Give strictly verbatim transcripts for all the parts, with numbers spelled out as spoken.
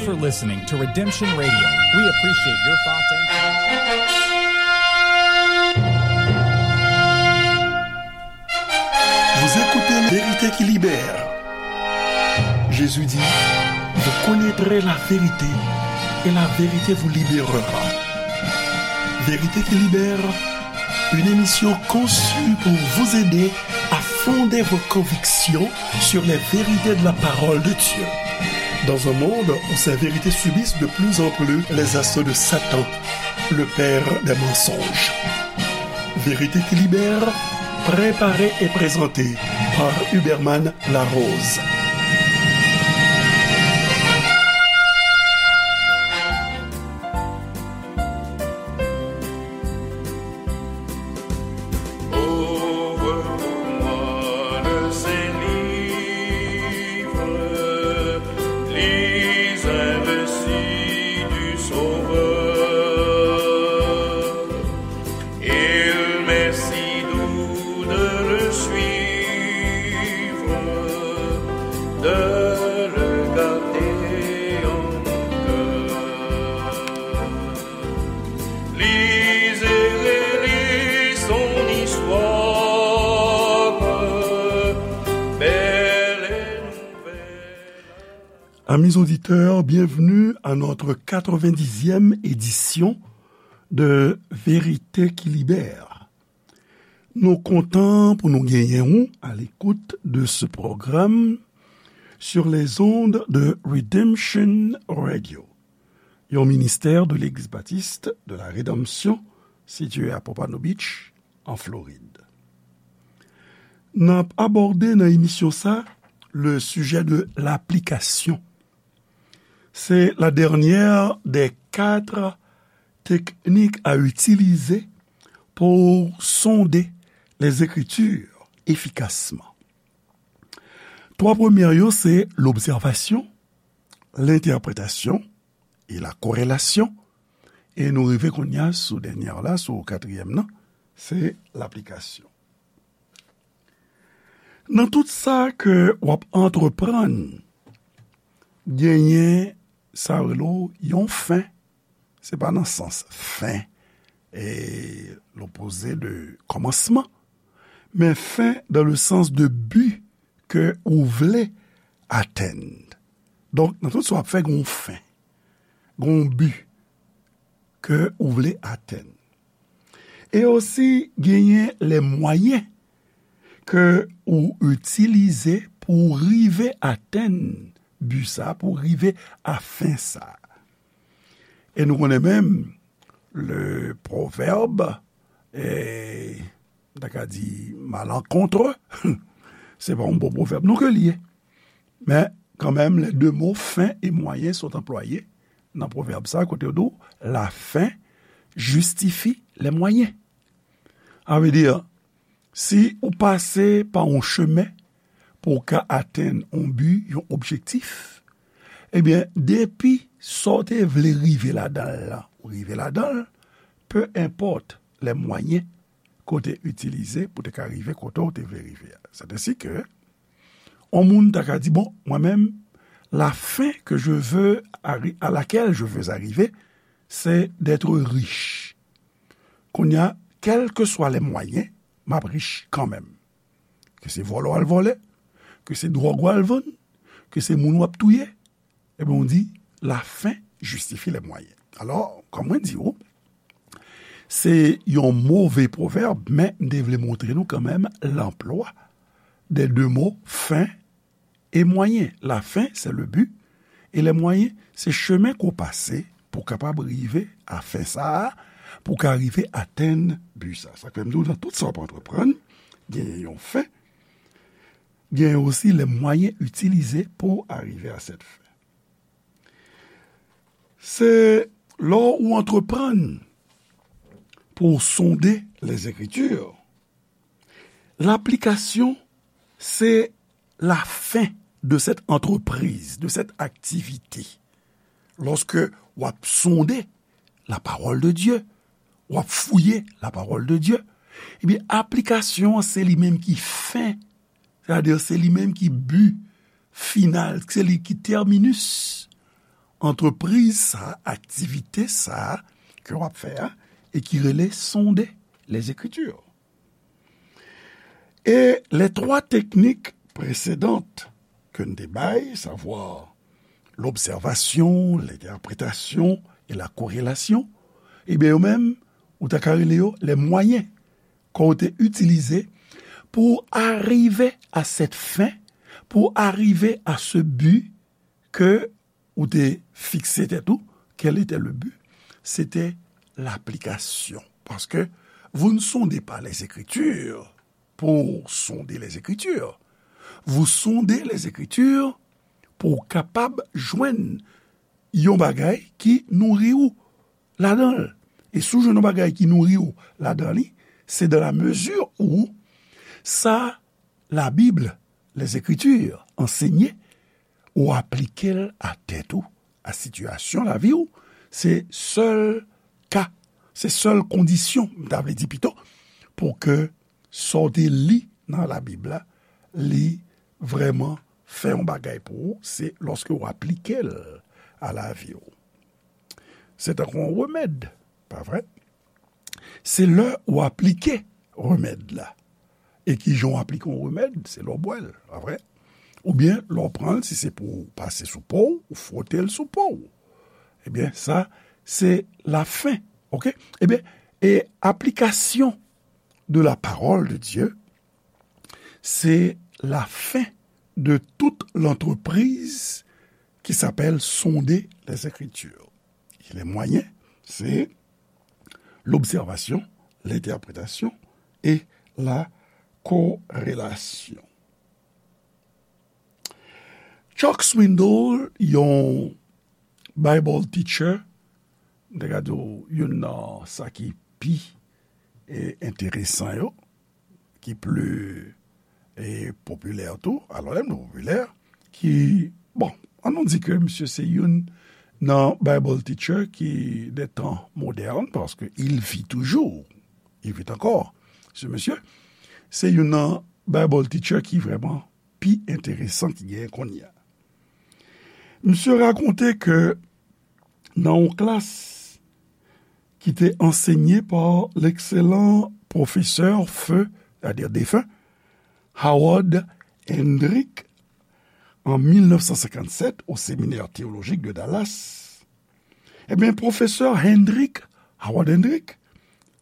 You're listening to Redemption Radio. We appreciate your thoughts and Vous écoutez La Vérité qui libère. Jésus dit, vous connaîtrez la vérité et la vérité vous libérera. Vérité qui libère, une émission conçue pour vous aider à fonder vos convictions sur les vérités de la parole de Dieu. Dans un monde où ces vérités subissent de plus en plus les assauts de Satan, le père des mensonges. Vérité qui libère, préparée et présentée par Huberman Larose. Ouvre pour moi le Saint-Livre, lis un récit du Sauveur. Il m'est si doux de le suivre, de le garder en mon cœur. Lisez et relisez son histoire, belle et nouvelle. Amis auditeurs, bienvenue à notre quatre-vingt-dixième édition de Vérité qui libère. Nou kontan pou nou genyen ou à l'écoute de ce programme sur les ondes de Redemption Radio, yon ministère de l'Église baptiste de la Rédemption située à Pompano Beach, en Floride. N ap abòde nan emisyon sa le sujet de l'application. C'est la dernière des quatre techniques à utiliser pour sonder les Écritures efficacement. Twa premye yo, se l'observation, l'interprétation et la corrélation. E nou rive kounye a sou dènyè la, sou katriyèm nan, se l'application. Nan tout sa ke w ap antreprann, genyen sa yo rele w yon fen. Se pa nan sans fin, e, l'opposé de commencement, men fin dans le sens de but ke ou vle atenn. Donk, nan tout sa w ap fè, gen yon fen, gen yon bi ke ou vle atenn. E osi, genyen les moyens ke ou itilize pou w rive atenn bi sa, pou w rive a fen sa. E nou konnen menm, le proverbe, e, m ta ka di malencontreux, se pa yon bon pwovèb non ke li ye. Men, kanmenm, les deux mots fin et moyen sont employés nan pwovèb sa, kote yo di w, la fin justifie les moyens. Sa vle di, si ou pase pa yon chemen pou w ka atenn yon bi, yon objektif, ebyen, depi sa w te vle rive ladan l lan, ou rive ladan l, peu importe les moyens ke w te itilize pou te ka rive kote w te vle rive a. C'est ainsi que, yon moun ta ka di, bon, mwen menm, la fin que je veux arri-, à laquelle je veux arriver, c'est d'être riche. Kounye a, quels que soient les moyens, m ap rich kanmenm. Ke se vòlè w al vòlè, ke se dwòg w al vann, ke se moun w ap touye, ebyen, w di, la fin justifie les moyens. Alò, kòm mwen di w, se yon move pwovèb, men m te vle montre nou kanmenm l'emploi des deux mots fin et moyen. La fin, c'est le but, et les moyens, se chemen ke w pase pou w kapab rive a fen sa a, pou w ka rive atenn bi sa. Sa k fè m di w, nan tout sa w ap antreprann, genyen yon fen, genyen osi les moyens utilisés pour arriver à cette fin. Se lè w antreprann pou w sonde les Écritures, l'application, c'est la fin de cette entreprise, de cette activité. Lòske w ap sonde la parole de Dieu, w ap fouye la parole de Dieu, ebyen, aplikasyon an, se li menm ki fen, sètadi se li menm ki bi final, se li ki terminus. antrepriz sa, aktivite sa ke w ap fè a, e ki rele sonde les Écritures. E les trois techniques précédentes ke n te bay, savwa l'observation, l'interprétation et la corrélation, ebyen, yo menm, ou ta ka rele yo les moyens ke w te itilize pou w arive à cette fin, pou w arive à ce but ke ou te fikse tèt ou. Quel était le but? C'était l'application. Parce que vous ne sondez pas les Écritures pour sonder les Écritures. Vous sondez les Écritures pou w kapab jwenn yon bagay ki nouri w ladan l. E si w jwenn yon bagay ki nouri w ladan li, c'est dans la mesure où sa la Bible, les Écritures, ansenye, ou aplike l a tèt ou, a sitiyasyon lavi w, se sèl ka, se sèl kondisyon, m ta vle di pito, pou ke sa w te li nan Labib la, li vrèman fè yon bagay pou ou, se lòske w aplike l a lavi w. Se tankou yon remèd, pa vre? Se lè w aplike remèd la. E ki jan w aplike yon remèd? Se lè w bwè l, pa vre? Oubyen lè w pran l, si se pou w pase sou po w, ou fwote l sou po w. Ebyen, sa, se lafen, oke? Ebyen, e aplikasyon de la parole de Dieu, c'est la fin de toute l'entreprise qui s'appelle sonder les Écritures. Et les moyens, c'est l'observation, l'interprétation et la corrélation. Chuck Swindoll, yon Bible teacher, m te ka di w youn nan sa ki pi, e, enteresan yo, ki pli, e, popilè tou. Alò, lè m di popilè, ki, bon, ann nou di ke misye se youn nan Bible teacher ki de tan modèn, paske il vit toujours. Il vit encore, ce monsieur. Se youn nan Bible teacher ki vrèman pi enteresan ki genyen kounye a. Misye rakonte ke nan yon klas ki te ansenye pa l'excellent professeur feu, c'est-à-dire défunt, Howard Hendrick, en mille neuf cent cinquante-sept au séminaire théologique de Dallas. Ebyen, pwofesè Hendrick, Howard Hendrick,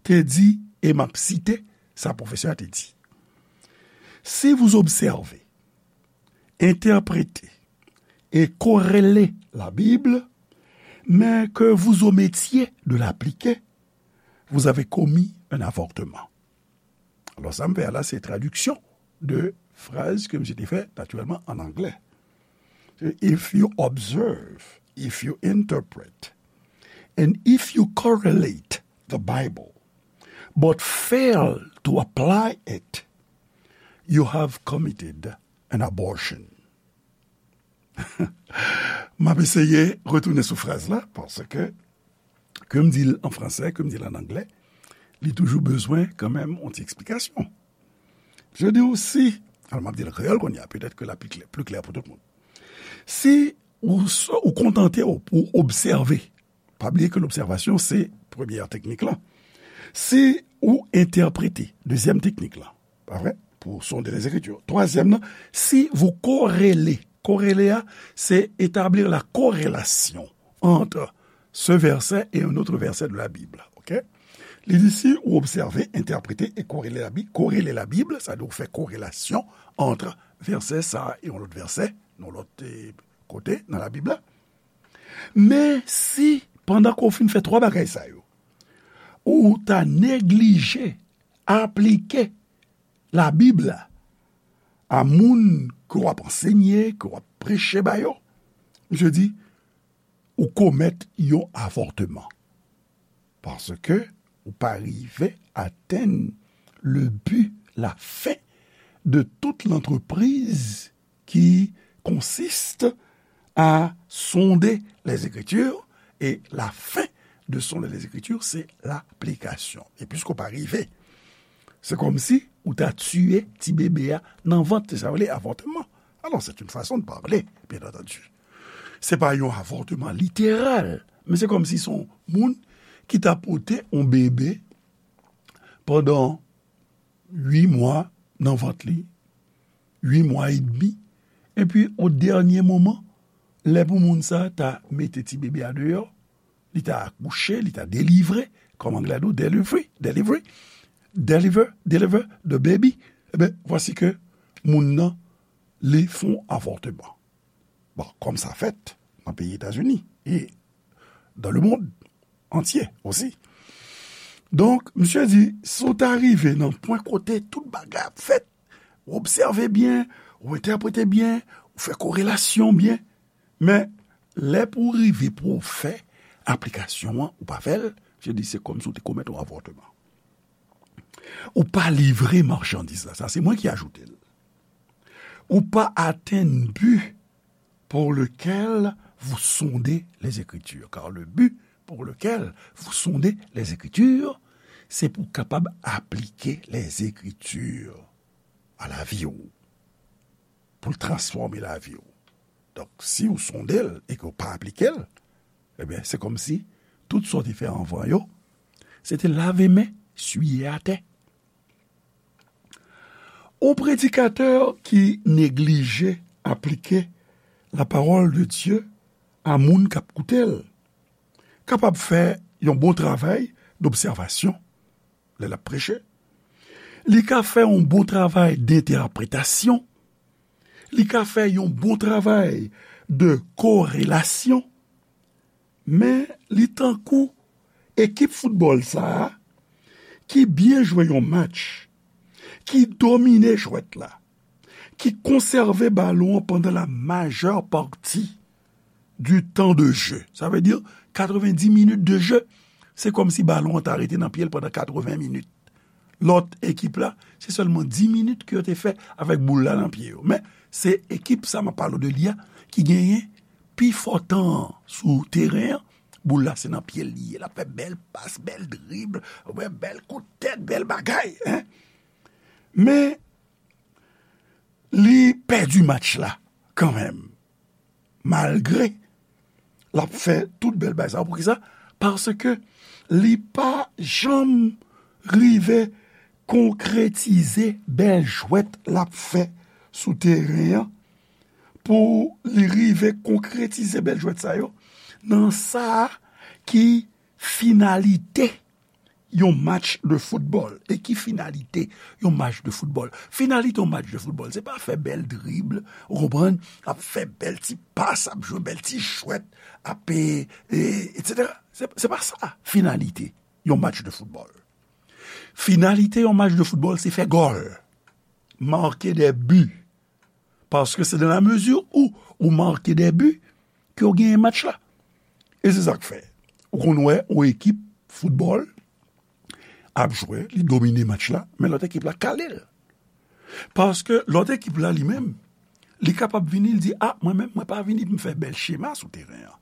te di, e m ap site sa pwofesè a te di, si vous observez, interprétez et corrélez la Bible, mais que vous omettiez de l'appliquer, vous avez commis un avortement. Alò, sa m fè a la, se tradiksyon de fraz ke misye te fè, natirèlman, an anglè. If you observe, if you interpret, and if you correlate the Bible, but fail to apply it, you have committed an abortion. M ap eseye retounen sou fraz la, paske ke m di l an fransè, ke m di l an anglè, li toujou bezwen kanmenm yon ti eksplikasyon. Je di w si, alò m ap di l an kreyòl kounye a, petèt ke l ap pi klè, pli klè pou tout moun. Si ou, ou kontante w pou w obsève, pa bliye ke lobsèvasyon se premyè teknik lan. Si ou entèprete, dezyèm teknik lan, pa vre? Pour sonder les Écritures. Twazyèm nan, si vous corrélez, corréler a, c'est établir la corrélation entre ce verset et un autre verset de la Bible. Ok? Li di, si ou obsève, entèprete e korele Labib, korele Labib, sa vle di ou fè korelasyon ant vèsè sa a e yon lòt vèsè, yon lòt, eh, kote nan Labib la. Men si, pandan ke w fin fè twa bagay sa yo, ou ta neglije aplike Labib la a moun ke w ap ansenye, ke w ap preche ba yo, misye di, ou komèt yon avòtman. Paske ou pa rive atenn le but, la fin de toute l'entreprise qui consiste à sonder les Écritures, et la fin de sonder les Écritures, c'est l'application. E piske w pa rive, se kòmsi ou ta tiye ti bebe a nan vant, se sa yo rele avòtman. Alors, c'est une façon de parler, bien entendu. Se pa yon avòtman literal, men se kòmsi se yon moun ki ta pote yon bebe pandan uit mwa nan vant li, uit mwa edmi, epi o dènye moman, lè pou moun sa ta mete ti bebe a deyò, li ta akouche, li ta delivre, kòm anglè di w, delivery, delivery, deliver, deliver the baby, ebyen, vwasi ke moun nan, li fè yon avòtman. Bon, kòm sa fèt nan peyi Etazini e dans le monde entier aussi. Donk, misye di, si w ta rive nan pwen kote tout bagay ap fèt, ou obsève byen, ou entèprete byen, ou fè korelasyon byen, men lè pou w rive pou w fè aplikasyon an, ou pa fè l, misye di se kòmsi w te komèt yon avòtman. Ou pa livre machandiz la, sa se mwen ki ajoute l. Ou pa atenn bi pour lequel vous sondez les Écritures. Car le but pour lequel vous sondez les Écritures, se pou w kapab aplike les Écritures a lavi w, pou l transfòme lavi w. Donk, si w sonde l e ke w pa aplike l, ebyen, se kòmsi tout sa w te fè anvan yo, se te lave men, siye atè. Yon predikatè ki neglije aplike la parole de Dieu a moun k ap koute l, kapab fè yon bon travay dobsèvasyon lè l ap preche. Li ka fè yon bon travay dentèpretasyon. Li ka fè yon bon travay de korelasyon. Men li tankou ekip foutbòl sa a ki byen jwe yon match, ki domine jwèt la, ki konsève balon an pandan la majè pati du temps de jeu. Sa vle di katrevendi minit de jeu. Se kòmsi balon an ta rete nan pye l pandan katreven minit. Lòt ekip la, se sèlman dis minit ke yo te fè avèk boul la nan pye yo. Men, se ekip sa m ap pale w de li a ki genyen pi fò tan an sou teren an. Boul la se nan pye l li ye. L ap fè bèl pas, bèl drib, bèl kout tèt, bèl bagay, en. Men, li pèdi match la kanmenm. Malgre l ap fè tout bèl bagay sa yo. Poukisa? Paske li pa janm rive konkretize bèl jwèt l ap fè sou teren an. Pou li rive konkretize bèl jwèt sa yo nan sa ki finalite yon match de foutbòl. E ki finalite yon match de foutbòl? Finalite yon match de foutbòl, se pa fè bèl drib, ou konprann? Ap fè bèl ti pas, ap jwe bèl ti jwèt, ap, e, e, etsetera. Se, se pa sa finalite yon match de foutbòl. Finalite yon match de foutbòl, se fè gòl, marquer des buts. Paske se dans la mesure où ou marke des buts ke w genyen match la. E se sa k fè ou konn wè yon ekip foutbòl ap jwe, li domine match la, men lòt ekip la kale l. Paske lòt ekip la li menm, li kapab vini, li di, a, mwen menm, mwen pa vini pou m fè bèl chema sou teren an.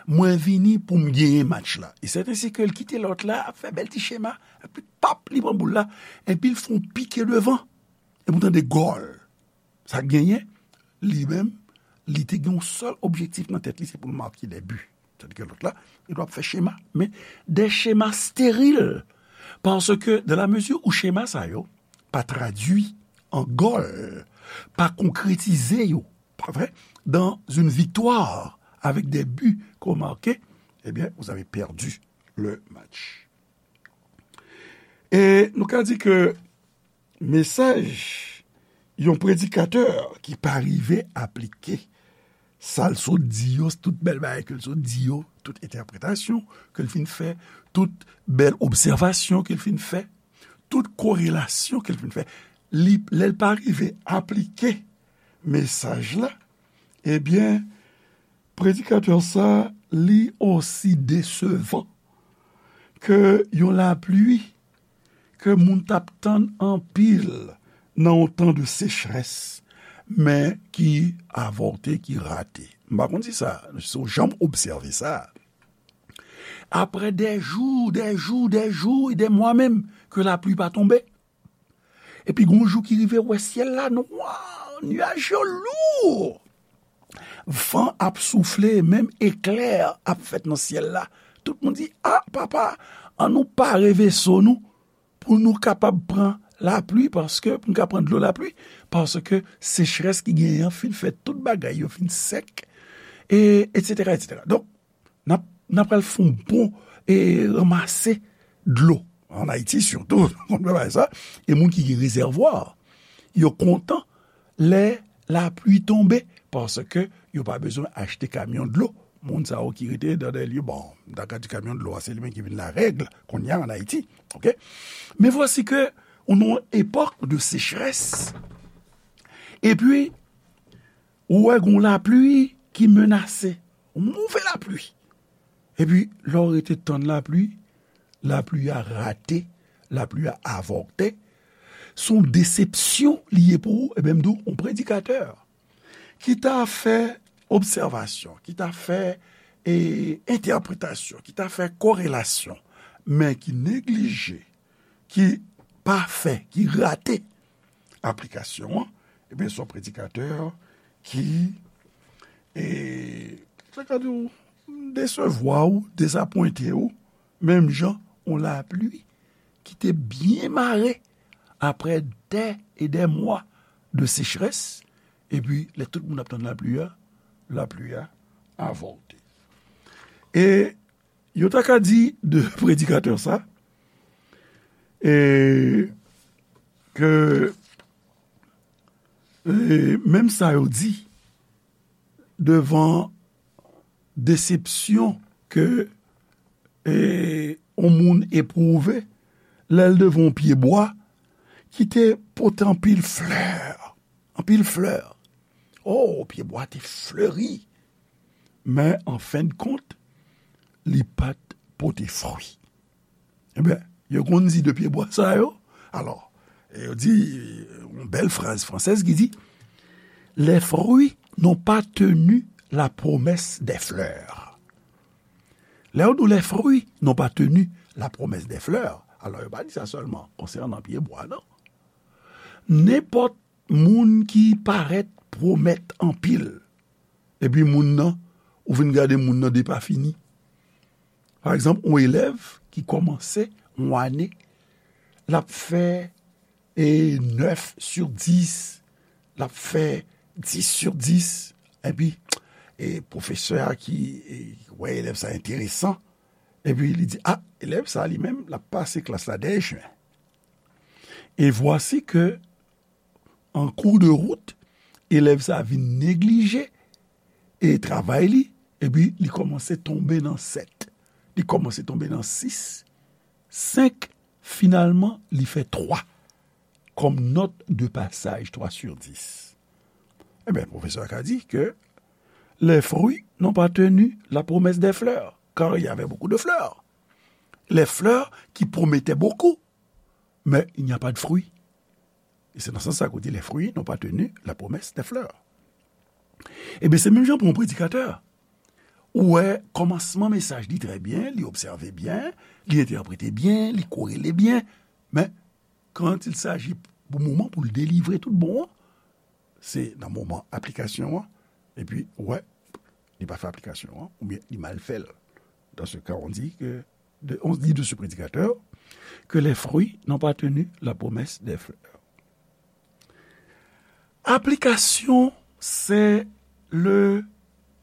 Mwen vini pou m genyen match la. E sèten se ke l kite lòt la ap fè bèl ti chema, epi pap, li pran boul la, epi l fè yon pike devan. Epi w tande gòl. Sa k genyen, li menm, li te gen yon sèl objektif nan tèt li, se pou l make de bi. Tandis ke lòt la, li t ap fè chema, men de chema steril. Paske, dans la mesure où chema sa yo pa tradui an gòl, pa konkretize yo, pa vre, dans une victoire avec des buts qu'on marque, eh bien, vous avez perdu le match. E nou ka di ke mesaj yon predikatè ki pa rive aplike sa l sot di yo, tout bèl bagay ke l sot di yo, tout entèpretasyon ke l fin fè, tout bèl obsèvasyon ke l fin fè, tout korelasyon ke l fin fè, li, lè l pa rive aplike mesaj la, ebyen, predikatè sa, li osi desevan ke yon lapli ke moun t ap tann anpil nan yon tan de sechrès, men ki avòte, ki rate. M pa konn si sa, si w janm obsève sa. Après des jours, des jours, des jours et des mois menm, ke lapli pa tonbe. Epi gon jou ki rive, ou wè syèl la nwa, nyaj yo lou. van ap soufle, menm eklè ap fèt nan syèl la. Tout moun di, "A, papa, ann nou pare veso nou pou nou kapab pran lapli, paske, pou nou ka pran dlo lapli, paske sechrès ki genyen an fin fè tout bagay yo fin sèk, e, etsetera, etsetera." Donk, n ap, n ap pral fè yon bon, e, ranmase dlo. Ann Ayiti, sitou, konn fè bagay sa. E moun ki gen rezèvwa, yo kontan lè lapli tonbe, paske yo pa bezwen achte kamyon dlo. Moun sa yo ki rete dans des lieux, bon, m ta ka di kamyon dlo a, se li menm ki vin larèg kounye a ann Ayiti, oke? Men vwasi ke nou nan yon epòk de sechrès, epi ou wè gon lapli ki menase, yon move lapli. Epi, lè w rete tann lapli, lapli a rate, lapli a avòte. Se yon desepsyon li ye pou ou, ebyen, m di w, yon predikatè ki ta fè obsèvasyon, ki ta fè, e, entèpretasyon, ki ta fè korelasyon, men ki neglije, ki pa fè, ki rate aplikasyon an, ebyen, se yon predikatè ki, e, sa ka di w, desevwa w, dezapwente w, menm jan yon lapli ki te byen mare apre dè e dè mwa de sechrès, epi lè tout moun ap tann lapli a, lapli a avòte. E yo ta ka di de predikatè sa, e ke, e, menm sa yo di devan desepsyon ke, e, yon moun epwouve lè l devan yon pyebwa ki te pote anpil flè, anpil flè. O, pyebwa te fleri, men an fen de kont, li pa t pote fwi. Ebyen, yo konn di de pyebwa sa yo. Alò, yo di, yon bèl fraz fransèz ki di, "Les fruits n'ont pas tenu la promesse des fleurs." Lè yo di w, "Les fruits n'ont pas tenu la promesse des fleurs," alò, yo pa di sa sèlman konsènan pyebwa, non. Nenpòt moun ki parèt pwomèt anpil, epi moun nan, ou vin gade moun nan depafini. Pa egzanp, yon elèv ki kòmanse yon ane, l ap fè, e, nèf sur dis, l ap fè dis sur dis, epi, e, pwofesè a ki, e, wè elèv sa enteresan, epi li di, "A, elèv sa li menm, l ap pase klas la dèyè chen." E vwasi ke, an kou de wout, elèv sa vin neglije, e, travay li, epi li kòmanse tonbe nan sèt. Li kòmanse tonbe nan sis, senk, finalman, li fè twa kòm nòt de pasaj, twa sur dis. Ebyen, pwofesè a ka di ke les fruits n'ont pas tenu la promesse des fleurs, car il y avait beaucoup de fleurs. Les fleurs qui promettaient beaucoup, mais il n'y a pas de fruits. E se nan sans sa ke w di, "Les fruits n'ont pas tenu la promesse des fleurs." Ebyen, se menm jan pou yon predikatè. Ou wè, kòmansman mesaj li trè byen, li obsève byen, li entèprete byen, li korele byen, men quand il s'agit pou moman pou l delivre tout bon an, se nan moman aplikasyon an, epi, ou wè, li pa fè aplikasyon an, oubyen li mal fè l. Dans ce cas, on dit que, de, on dit de ce prédicateur que les fruits n'ont pas tenu la promesse des fleurs. Aplikasyon, se le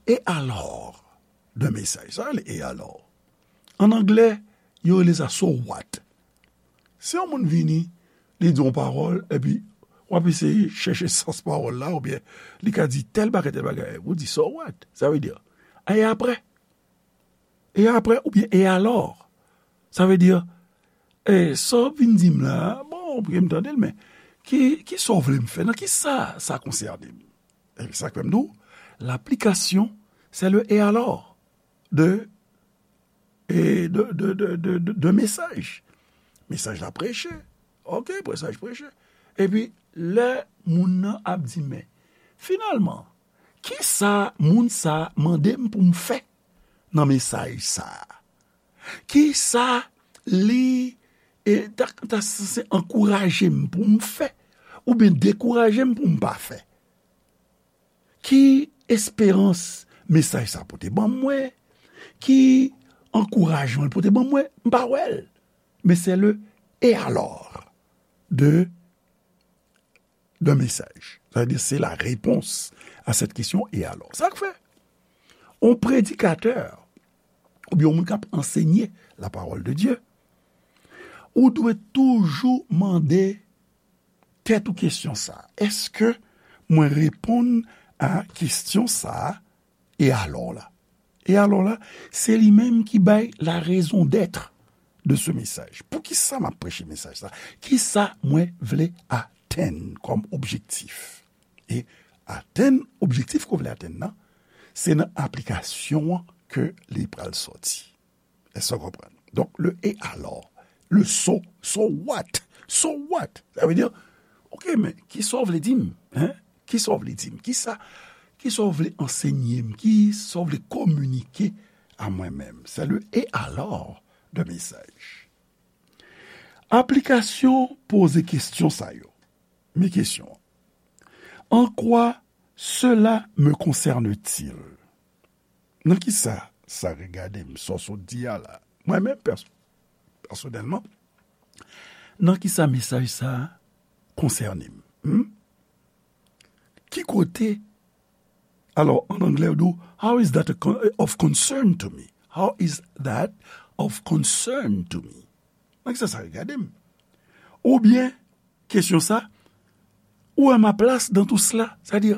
et alors de mesaj. Sa rele et alors. An anglè, yo rele sa so what. Si yon moun vini, li di yon pawòl, epi w ap eseye chèche sans pawòl la, oubyen li ka di tèl bagay, tèl bagay, ou di, "So what?" Sa vle di, "E apre?" E apre, oubyen, "E alò?" Sa vle di, "E, sa w vin di m la, bon, oubyen m tande l, men ki, ki sa w vle m fè? Nan ki sa sa konsène m?" E sa k fè m di w, laplikasyon, se le et alors de e de, de, de, de, de, de mesaj. Mesaj la preche. Oke, mesaj preche. Epi, lè moun nan ap di, "Men, finalman, ki sa moun sa mande m pou m fè nan mesaj sa a? Ki sa li, e, ta, ta sanse ankouraje m pou m fè, oubyen dekouraje m pou m pa fè?" Ki esperans mesaj sa pote ban mwen, ki ankourajman l pote ban mwen, m pa wè l. Men se le et alors de d'un message. Sa vle di, se la réponse à cette question, et alors. Sa k fè, yon predikatè, oubyen yon moun k ap ansenye la parole de Dieu, ou dwe toujou mande tèt ou kesyon sa. Èske mwen reponn a kesyon sa a, e alò la? E alò la, se li menm ki bay la raison d'être de ce message. Poukisa m ap preche mesaj sa? Kisa mwen vle atenn kòm objektif? E atenn objektif ke w vle atenn nan, se nan aplikasyon an ke li pral sòti. Èske w konprann? Donk, le et alors, le so, so what? So what? Sa vle di, ok, men kisa w vle di m? Hein? Kisa w vle di m? Kisa, kisa w vle ansenye m? Kisa w vle kominike a mwen menm? Se le et alors de message. Aplikasyon poze kesyon sa yo. Men kesyon an. En quoi cela me concerne-t-il? Nan kisa sa regade m, sa w sot di a la? Mwen menm, pèso-, pèsonèlman, nan kisa mesaj sa a konsène m? Hmm? Ki kote? Alò, an anglè, yo di w, "How is that a con-, of concern to me? How is that of concern to me?" Nan kisa sa regade m? Oubyen, kesyon sa, où est ma place dans tout cela? Sa di,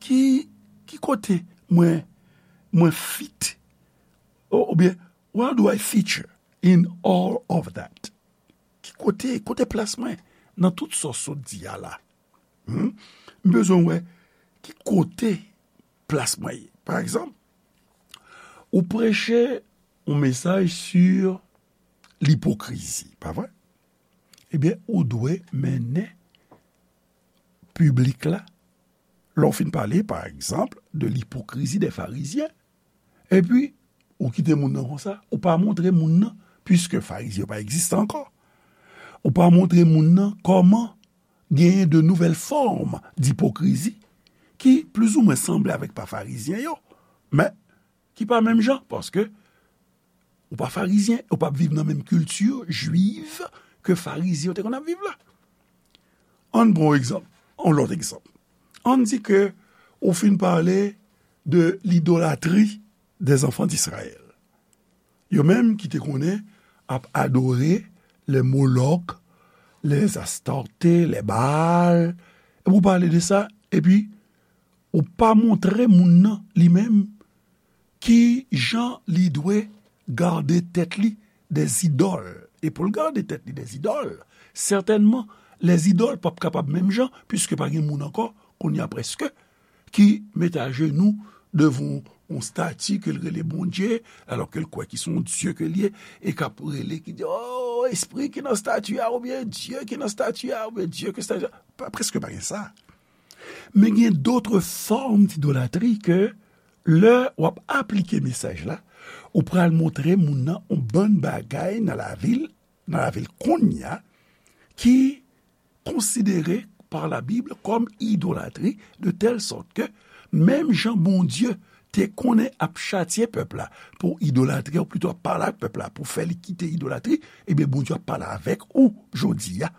ki, ki kote mwen, mwen fit? Ou, oubyen, where do I feature in all of that? Ki kote, kote plas mwen nan tout sa w sot di a la? Hmm? M bezwen wè ki kote plas mwen ye. Pa egzanp, ou preche yon mesaj sur l'hypocrisie, pa vre? Ebyen, ou dwe mennen piblik la, lè w fin pale, pa egzanp, de l'hypocrisie des pharisiens, epi ou kite moun nan konsa, ou pa montre moun nan, piske Farizyen yo pa egziste ankò, ou pa montre moun nan kòman genyen de nouvelles formes d'hypocrisie ki plizoumwen sanble avèk pa Farizyen yo, men ki pa menm jan, paske ou pa Farizyen, ou p ap viv nan menm kilti jwiv ke Farizyen yo te konn ap viv la. Ann pran yon egzanp, yon lòt egzanp. Ann di ke ou fin pale de l'idolatrie des enfants d'Israël. Yo menm ki te konnen ap adore les Moloch, les Astarté, les Baal. Epi ou pale de sa, epi ou pa montre moun nan li menm ki jan li dwe gade tèt li dè zidòl. E pou l gade tèt li dè zidòl, sètènman, lèzidòl p ap kapab menm jan, piske pa gen moun ankò, kounye a prèske, ki mete ajenou devan yon stati ke l rele Bondye, alò ke l kwè ki se yon dye ke l ye, e k ap rele, ki di, "O, espri ki nan stati a," oubyen, "Dye ki nan stati a," oubyen, "Dye ke stati a." Pa, prèske pa gen sa. Men gen d'autres formes d'idolatrie ke lè w ap aplike mesaj la, ou pral montre moun nan yon bann bagay nan lavi l, nan lavi l kounye a, ki konsidere par la Bible kòm idolatri, de tèl sòt ke menm jan Bondye te konnen ap chatye pèp la pou idolatri, ou plito ap pale ak pèp la pou fè li kite idolatri, ebyen Bondye ap pale avèk ou jodi a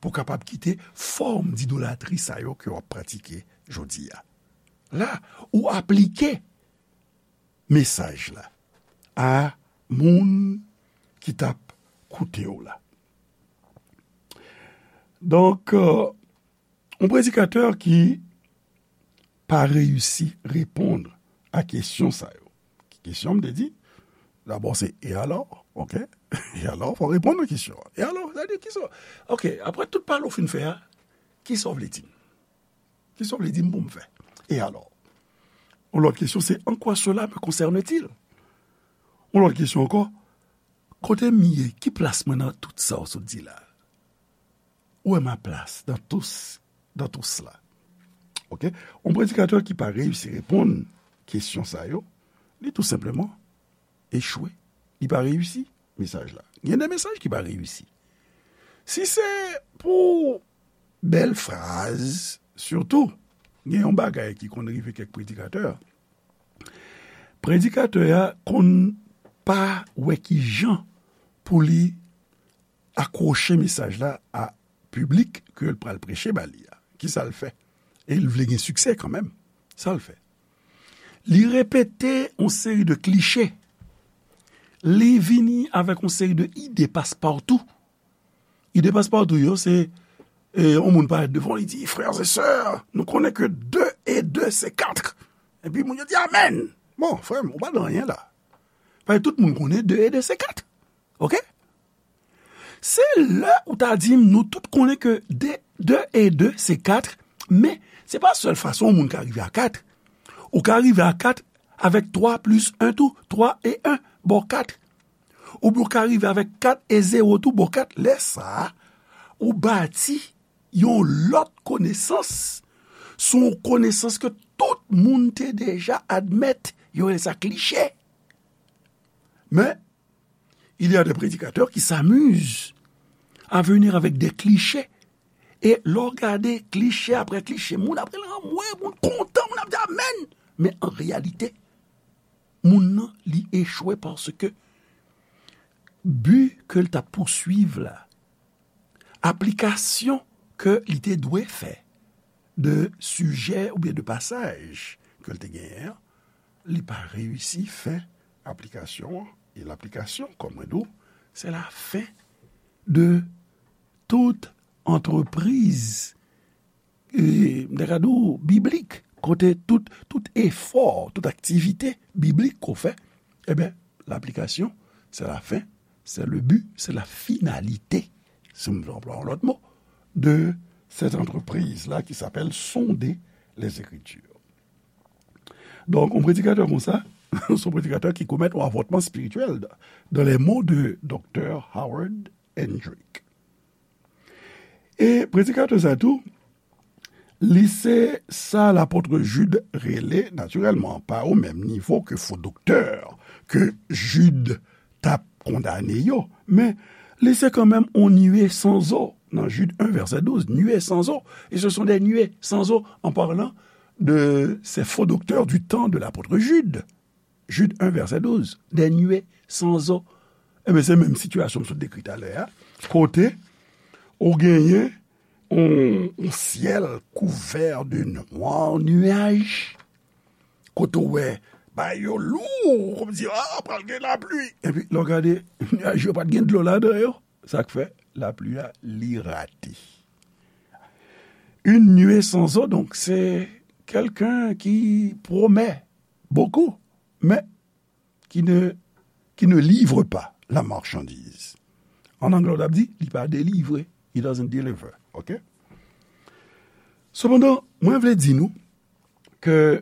pou kapab kite fòm didolatri sa yo ke w ap pratike jodi a. La, ou aplike mesaj la a moun ki t ap koute w la. Donk, euh, yon predikatè ki pa reyisi reponn a kesyon sa yo. Ki kesyon m te di? Dabò, se e alò, ok? E alò, fò w reponn nan kesyon an. E alò, sa vle di kisa? Ok, apre tout pale w fin fè a, kisa w vle di m? Kisa w vle di m pou m fè? E alò? Yon lòt kesyon se, en quoi cela me concerne-t-il? Yon lòt kesyon ankò, kote m ye? Ki plas mwen nan tout sa w sot di la? Où est ma place dans tout, dans tout cela? Ok? Yon predikatè ki pa reyisi reponn kesyon sa yo, li tou senpleman echwe. Li pa reyisi mesaj la. Gen de mesaj ki pa reyisi. Si se pou bèl fraz, sitou, Gen yon bagay ki konn rive kèk predikatè. Predikatè a konn pa wè ki jan pou li akwoche mesaj la a piblik ke l pral preche ba li a. Kisa l fè? E l vle gen siksè kanmenm. Sa l fè? Li repete yon seri de kliche. Li vini avèk yon seri de ide paspawtou. Ide paspawtou yo, se, e, yon moun parèt devan, li di, frères et sœurs, nou konnen ke de e de se kat. Epi moun yo di, amèn. Bon, frè m, ou pa nan anyen la. Paske tout moun konnen de e de se kat. Oke? Se lè ou ta di m, nou tout konnen ke de, de e de se kat, men se pa sèl fason yon moun ka rive a kat. Ou ka rive a kat avèk twa plis en tou, twa e en ba w kat. Oubyen ou ka rive avèk kat e zewo tou ba w kat. Lè sa a, ou bati yon lòt konesans, se yon konesans ke tout moun te deja admèt, yo rele sa kliche. Men, il y a des prédicateurs qui s'amusent à venir avec des clichés. E lè w gade kliche apre kliche, moun ap rele anmwe, moun kontan, moun ap di amèn. Men an reyalite, moun nan, li echwe paske bi ke l t ap pouswiv la, aplikasyon ke li te dwe fè de sijè oubyen de pasaj ke l te genyen an, li pa reyisi fè aplikasyon an. E laplikasyon, kòm mwen di w, se lafen de tout antrepriz, e, m ta ka di w, biblik, kote tout, tout efò, tout aktivite biblik ke w fè, ebyen, laplikasyon, se lafen, se le bi, se la finalite, si m vle anplwaye yon lòt mo, de cette entreprise-là qui s'appelle sonder les Écritures. Donk, yon predikatè konsa, se yon predikatè ki komèt yon avòtman espirityèl, dans les mots de doktè Howard Hendrick. E predikatè sa tou, li se sa lapot Jid rele, natirèlman, pa o menm nivo ke fo doktè ke Jid t ap kondane yo, men li se kanmenm yon nuée sans eau. Dans Jude un, verset douze, nuée sans eau. Et ce sont des nuées sans eau en parlant de ces faux docteurs du temps de l'apôtre Jude. Jude un, verset douze, des nuées sans eau. Ebyen, se menm sitiyasyon m sot dekri talè a, kote ou genyen yon, yon syèl kouvè de nwa nuaj, kote w wè bagay yo lou, kòmsi, ah, pral gen lapli. Epi, lè w gade, nuaj yo pa t gen dlo ladan yo. Sa k fè lapli a, li rate. Une nuée sans eau, donc, c'est quelqu'un qui promet beaucoup, mais qui ne, qui ne livre pas la marchandise. An anglè, w t ap di, li pa delivre. He doesn't deliver. Oke? Sepandan, mwen vle di nou ke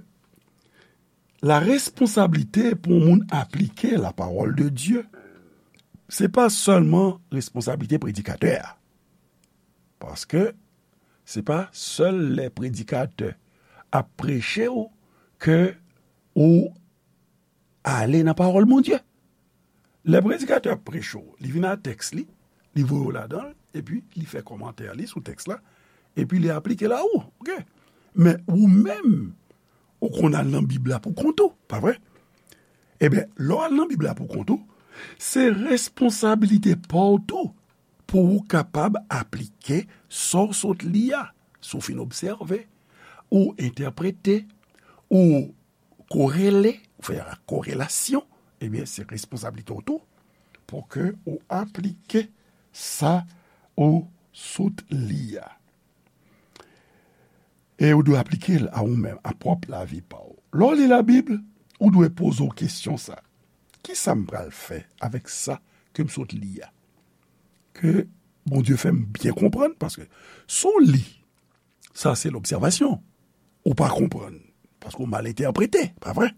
la responsablite pou yon moun aplike la parole de Dieu, se pa sèlman responsablite predikatè a. Paske se pa sèl lè predikatè ap preche w ke ou ale nan pawòl Bondye. Lè predikatè ap preche w, li vin ak tèks li, li voye w ladan l, epi li fè kòmantè li sou tèks la, epi li aplike l a ou. Oke? Men ou menm, ou konn al nan Bib la pou kont ou, pa vre? Ebyen, lè w al nan Bib la pou kont ou, se responsablite pa w tou pou ou kapab aplike sa w sot li a. Si w fin obsève, ou entèprete, ou korele, ou fè korelasyon, ebyen, se responsablite w tou pou ke ou aplike sa ou sot li a. E ou dwe aplike l a ou menm, a pwòp lavi pa w. Lè w li Labib, ou dwe poze w kesyon sa, kisa m pral fè avèk sa ke m sot li a? Ke Bondye fè m byen konprann, paske si w li, sa se lobsèvasyon, ou pa konprann, paske w mal entèprete, pa vre?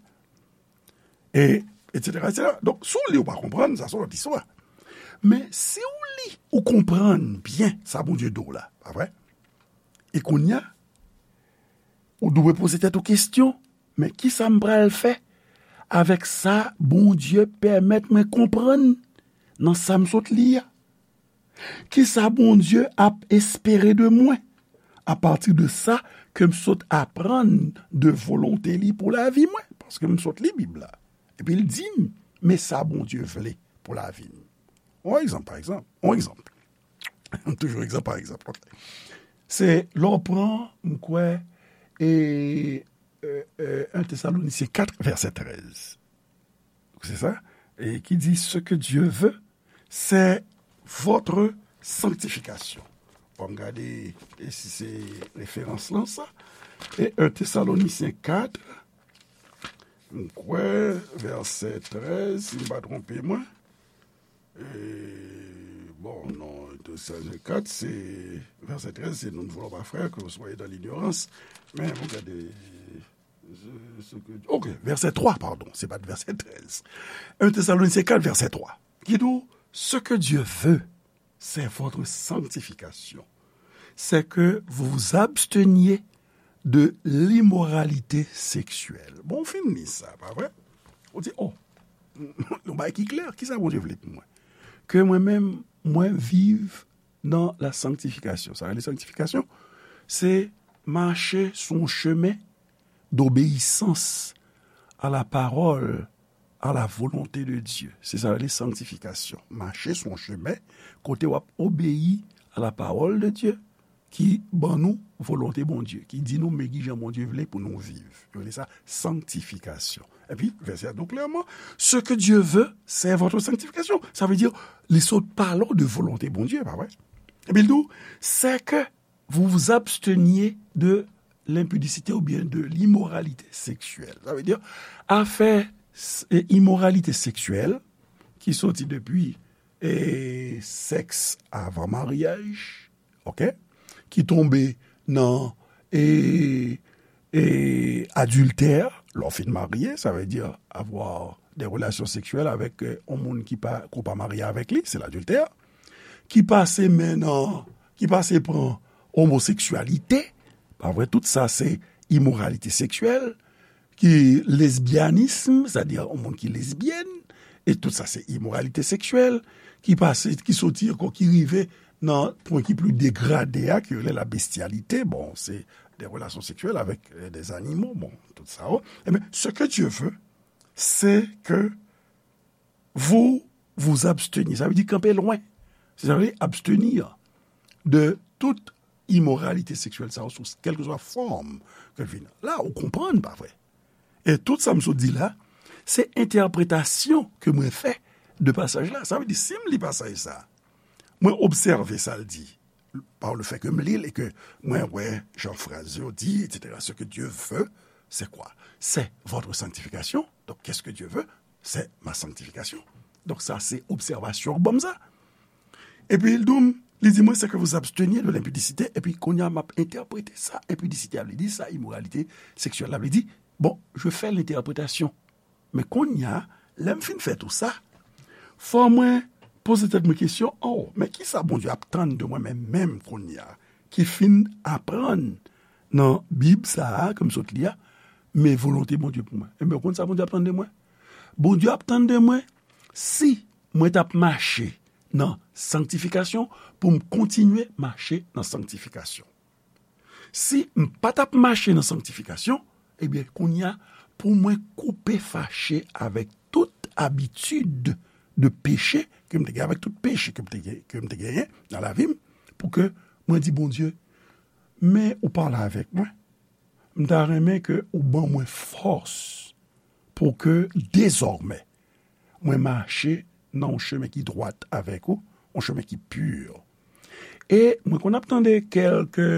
E, etsetera, etsetera. Donk, si w li, ou pa konprann, sa se yon lòt istwa. Men, si w li, ou konprann byen sa Bondye di w la, pa vre? E kounye a, ou dwe poze tèt ou kesyon, men kisa m pral fè avèk sa Bondye pèmèt mwen konprann nan sa m sot li a? Kisa Bondye ap espere de mwen apati de sa ke m sot aprann de volonte li pou lavi mwen, paske m sot li Bib la. Epi l di m, men sa Bondye vle pou lavi m. On egzanp, pa egzanp, on egzanp. Toujou egzanp pa egzanp. Ok. Se lè w pran, m kwè, e, e, e, un Thessaloniciens quatre, verset treize. C'est ça? Et qui dit, ce que Dieu veut, c'est votre sanctification. Bon, m gade e si se referans lan sa. E un Thessaloniciens quatre, m kwè, vèsè trèz, si m pa twonpe mwen. E, bon, non, un Thessaloniciens quatre, se, vèsè trèz, c'est nous ne voulons pas, frères, que vous soyez dans l'ignorance. Men, bon, gade, ce, ce que, ok, verset trois, pardon, c'est pas verset treize. Un Thessaloniciens quatre, verset trois, qui dit, ce que Dieu veut, c'est votre sanctification. C'est que vous vous absteniez de l'immoralité sexuelle. Bon, w fin li sa, pa vre? Ou di, oh, yon bagay ki klè, kisa Bondye vle pou mwen? Ke mwen menm, mwen viv nan la sanctification. Sa rele sanctification, se mache sou yon chemen d'obéissance à la parole, à la volonté de Dieu. Se sa rele sanctification. Mache sou yon chemen kote w ap obeyi a la parole de Dieu, ki ban nou volonte Bondye, ki di nou men kijan Bondye vle pou nou viv. Yo rele sa sanctification. Epi, vèsè a di w klèman, ce que Dieu veut, c'est votre sanctification. Sa vle di, li sot pale w de volonte Bondye, pa vre? Epi l di w, c'est que vous vous absteniez de l'impudicité ou bien de l'immoralité sexuelle. Sa vle di, afè s-, e, imoralite seksyèl, ki soti depi, e, sèks avan maryaj, ok? Ki tonbe nan, e, e, adiltè, lè w fin marye, sa vle di avoir des relations sexuelles avec, e, yon moun ki pa, ke w pa marye avèk li, se ladiltè. Ki pase men nan, ki pase pran omoseksyalite, pa vre, tout sa se imoralite seksyèl, ki lesbyanism, sètadi yon moun ki lesbyèn, e tout sa se imoralite seksyèl, ki pase, ki soti ankò, ki rive nan pwen ki pli degrade a, ki rele la bestialité, bon, se des relations sexuelles avec, euh, des animaux, bon, tout sa, oh. Ebyen, ce que Dieu veut, c'est que vous vous absteniez. Sa vle di kanpe lwen. Se sa vle di abstenir de tout imoralite seksyèl sa yo sou kèlkeswa fòm ke l vin. La, ou konprann, pa vre? E tout sa m sot di la, se entèpretasyon ke mwen fè de pasaj la. Sa vle di, si m li pasaj sa, mwen obsève sa l di, par le fait que m li l e ke mwen wè jan fraz yo di, et cetera. Ce que Dieu veut, c'est quoi? C'est votre sanctification. Donc, qu'est-ce que Dieu veut? C'est ma sanctification. Donk, sa se obsèvasyon ban m sa. Epi, l di m, li di mwen, c'est que vous absteniez de l'impudicité. Epi, kounye a, m ap entèprete sa enpidisite a vle di, sa imoralite seksyèl la vle di. Bon, je fais l'interprétation. Men kounye a, lè m fin fè tou sa, fò mwen poze tèt mwen kesyon, oh, men kisa Bondye ap tann de mwen menm, menm kounye a, ki fin aprann nan Bib sa a, ke m sot li a, men volonte Bondye pou mwen. Ebyen, ou konn sa Bondye ap tann de mwen? Bondye ap tann de mwen, si mwen t ap mache nan sanktifikasyon, pou m kontinye mache nan sanktifikasyon. Si m pa t ap mache nan sanktifikasyon, ebyen, kounye a, pou mwen koupe fache avèk tout abitid de peche ke m te gen, avèk tout peche ke m te gen, ke m te genyen nan lavi m, pou ke mwen di Bondye, men ou pale avèk mwen. M ta renmen ke ou ban mwen fòs pou ke dezòmè mwen mache nan yon chemen ki dwat avèk ou, yon chemen ki pi. E mwen konn ap tande kèlke,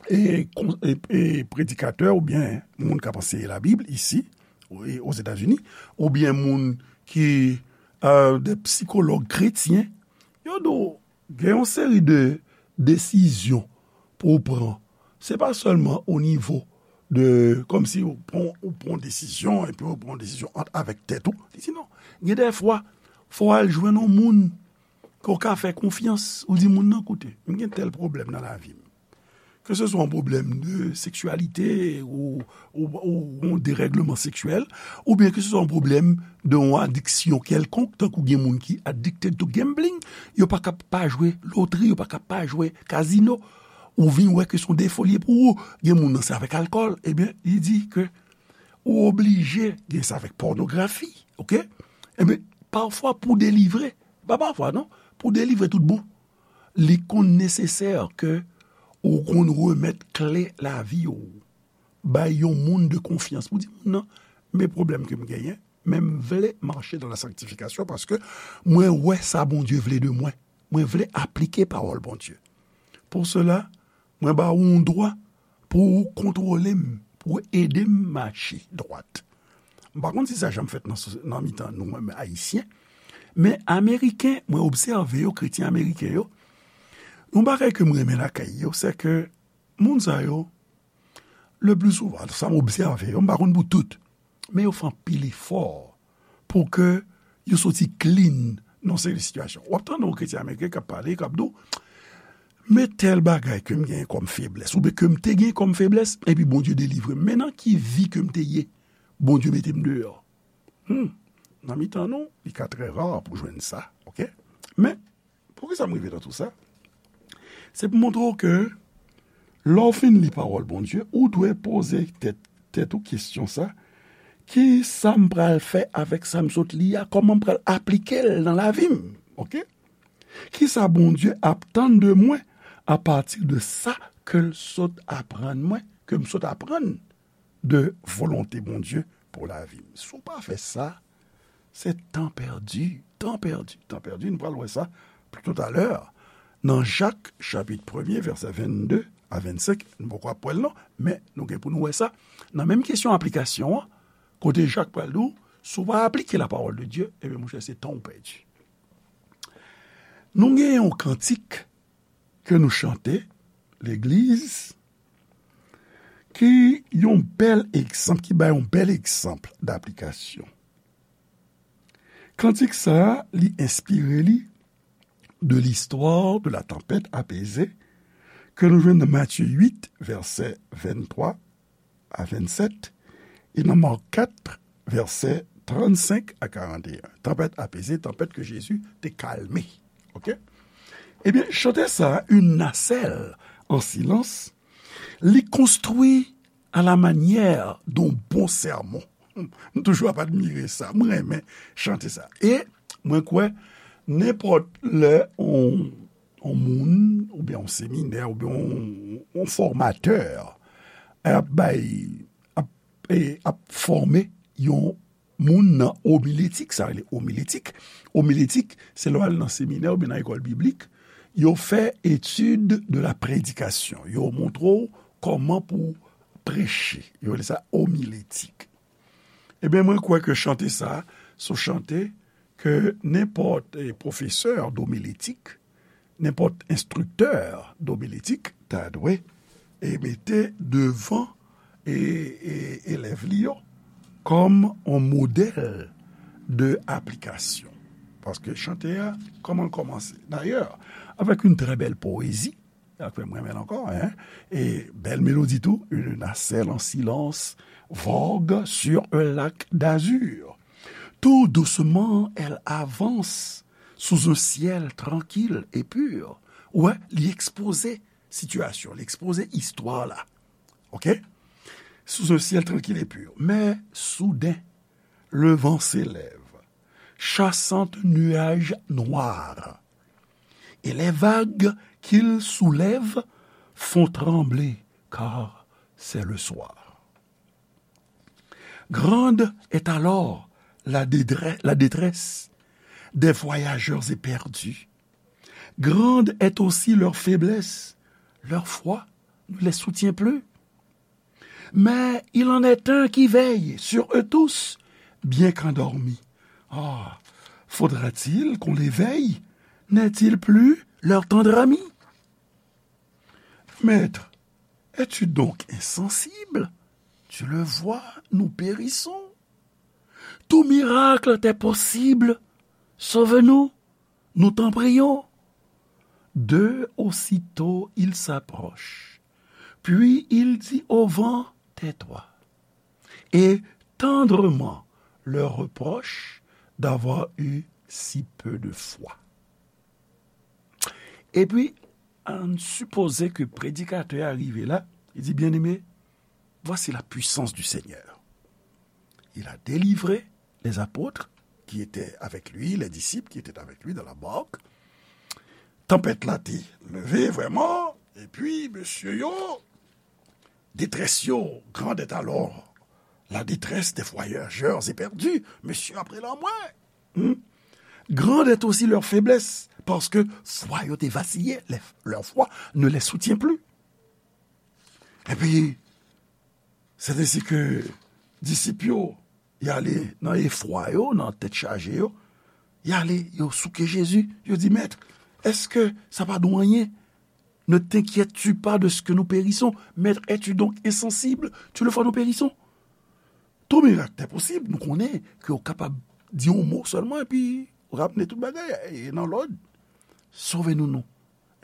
e, kon-, e, e, predikatè oubyen moun k ap anseye Labib isi, e, Ozetazini, oubyen moun ki, e, de sikològ kretyen, yo di w gen yon seri de desizyon pou w pran. Se pa sèlman o nivo de, kòmsi ou pran, ou pran desizyon, epi ou pran desizyon ant, avèk tèt ou. Li di non. Gen de fwa, fò w al jwenn yon moun ke w ka fè konfyans. Ou di moun nan, koute, m gen tèl pwoblèm nan lavi m. Ke se swa yon pwoblèm de seksyalite ou, ou, ou yon derègleman seksyèl, oubyen ke se swa yon pwoblèm de yon adiksyon kèlkonk, tankou gen moun ki addicted to gambling, yo pa ka pa jwe lotri, yo pa ka pa jwe kazino. ou vin wè ke se yon defo li ye pou ou. Gen moun nan se avèk alkòl, ebyen, li di ke ou oblije gen sa avèk pònografi, oke? Ebyen, pafwa pou delivre, pa pafwa non, pou delivre tout bon, li konn nesesè ke ou konn remèt kle lavi ou bay yon moun de konfyans pou di, moun nan, men pwoblèm ke m genyen, men m vle mache dans la sanctification paske mwen wè sa Bondye vle de mwen. Mwen vle aplike pawòl Bondye. Pour cela, mwen ba ou yon dwa pou ou kontwole m, pou ou ede m mache dwat. M pa konn si sa janm fèt nan, nan mitan nou menm Ayisyen, men Ameriken, mwen obsève yo, kretyen ameriken yo, yon bagay ke m renmen lakay yo, se ke moun sa yo, le pli souvan, sa m obsève yo, m pa konn pou tout, men yo fè anpil efò pou ke yo soti clean nan seri sitiyasyon. W ap tande yon kretyen ameriken k ap pale, k ap di w, men tèl bagay ke m genyen kòm feblès, oubyen ke m te genyen kòm feblès, epi Bondye delivre m. Men nan ki vi ke m te ye, Bondye mete m deyò. Hmm. Nan mitan nou, li ka trè ra pou jwenn sa, oke? Men, poukisa m rive nan tou sa? Se pou montre w ke lè w fin li pawòl Bondye, ou dwe poze tèt, tèt ou kesyon sa, ki sa m pral fè avèk sa m sot li a? Kòman m pral aplike l nan lavi m? Oke? Ki sa Bondye ap tann de mwen apati de sa ke l sot aprann mwen, ke m sot aprann de volonte Bondye pou lavi m? Si w pa fè sa, se tan pèdi, tan pèdi, tan pèdi. Nou pral wè sa pito talè. Nan Jak, chapit premye, vèsè vennde a vennsenk, nou poko ap wè l non, men nou gen pou nou wè sa. Nan menm kesyon aplikasyon an, kote Jak pral di w, si w pa aplike la parole de Dieu, ebyen, monchè, se tan w pèdi. Nou gen yon kantik ke nou chante, legliz, ki yon bèl egzanp, ki bay yon bèl egzanp daplikasyon. Kantik sa a, li enspire li de l'histoire de la tempête apaisée ke nou jwenn nan Matye uit, vèsè venntwa a vennsèt, e nan Mak kat, vèsè trannsenk a karanteyen. Tanpèt apeze, tanpèt ke Jezi te kalme. Oke? Ebyen, chante sa a, Une nacelle en silence, li konstwi à la manière d'un bon sermon. M toujou ap admire sa. Mwen renmen chante sa. E mwen kwè, nenpòt lè on, on moun, oubyen on seminè, oubyen on, on fòmatè ap bay, ap, e, ap fòme yon moun nan omiletik, sa rele omiletik. Omiletik, se lè w al nan seminè oubyen nan lekòl biblik, yo fè étude de la prédication. Yo montre w kòman pou preche. Yo rele sa omiletik. Ebyen, mwen kwè ke chante sa, se yon chante ke nenpòt, e, pwofesè domiletik, nenpòt enstriktè domiletik ta dwe, e, mete devan, e, e, elèv li yo kòm yon modèl de aplikasyon. Paske chante a, kòman l kòmanse? Dayè, avèk yon trè bèl powezi, sa fè m renmen l ankò, en. E bèl melodi tou, Une nacelle en silence vogue sur un lac d'azur. Tout doucement, elle avance sous un ciel tranquille et pur. Ou wè, li ekspoze sitiyasyon, li ekspoze istwa la. Oke? Sous un ciel tranquille et pur. Mais soudain, le vent s'élève, chassant nuages noirs, et les vagues qu'il soulève font trembler, car c'est le soir. Grande est alors la dédre-, la détresse des voyageurs éperdus. Grande est aussi leur faiblesse. Leur foi ne les soutient plus. Mais il en est un qui veille sur eux tous, bien qu'endormi. Ah, faudra-t-il qu'on les veille? N'est-il plus leur tendre ami? Maître, es-tu donc insensible? Tu le vois, nous périssons. Tout miracle t'est possible. Sauve-nous, nous t'en prions. D'eux aussitôt il s'approche. Puis il dit au vent, tais-toi. Et tendrement leur reproche d'avoir eu si peu de foi. Epi, ann sipoze ke predikatè a rive la, li di, Bien-aimés, voici la puissance du Seigneur. Il a délivré les apôtres qui étaient avec lui, les disciples qui étaient avec lui dans la barque. Tanpèt la te leve vrèman, epi mesye yo, détresse yo, grande est alors la détresse des voyageurs éperdus, mesye ap rele anmwe. Hmm? Grande est aussi leur faiblesse, paske fwa yo te vasiye, leur foi ne les soutient plus. Epi, se te si ke disip yo, y ale nan efwa yo, nan tèt chaje yo, y ale, yo souke Jezi, yo di, Maître, est-ce que ça va nous rien? Ne t'inquiètes-tu pas de ce que nous périssons? Maître, es-tu donc insensible? Tu le vois, nous périssons. Tout miracle est possible, nou konnen ke w kapab di yon mo sèlman epi ramne tout bagay e nan lòd. Sove nou non.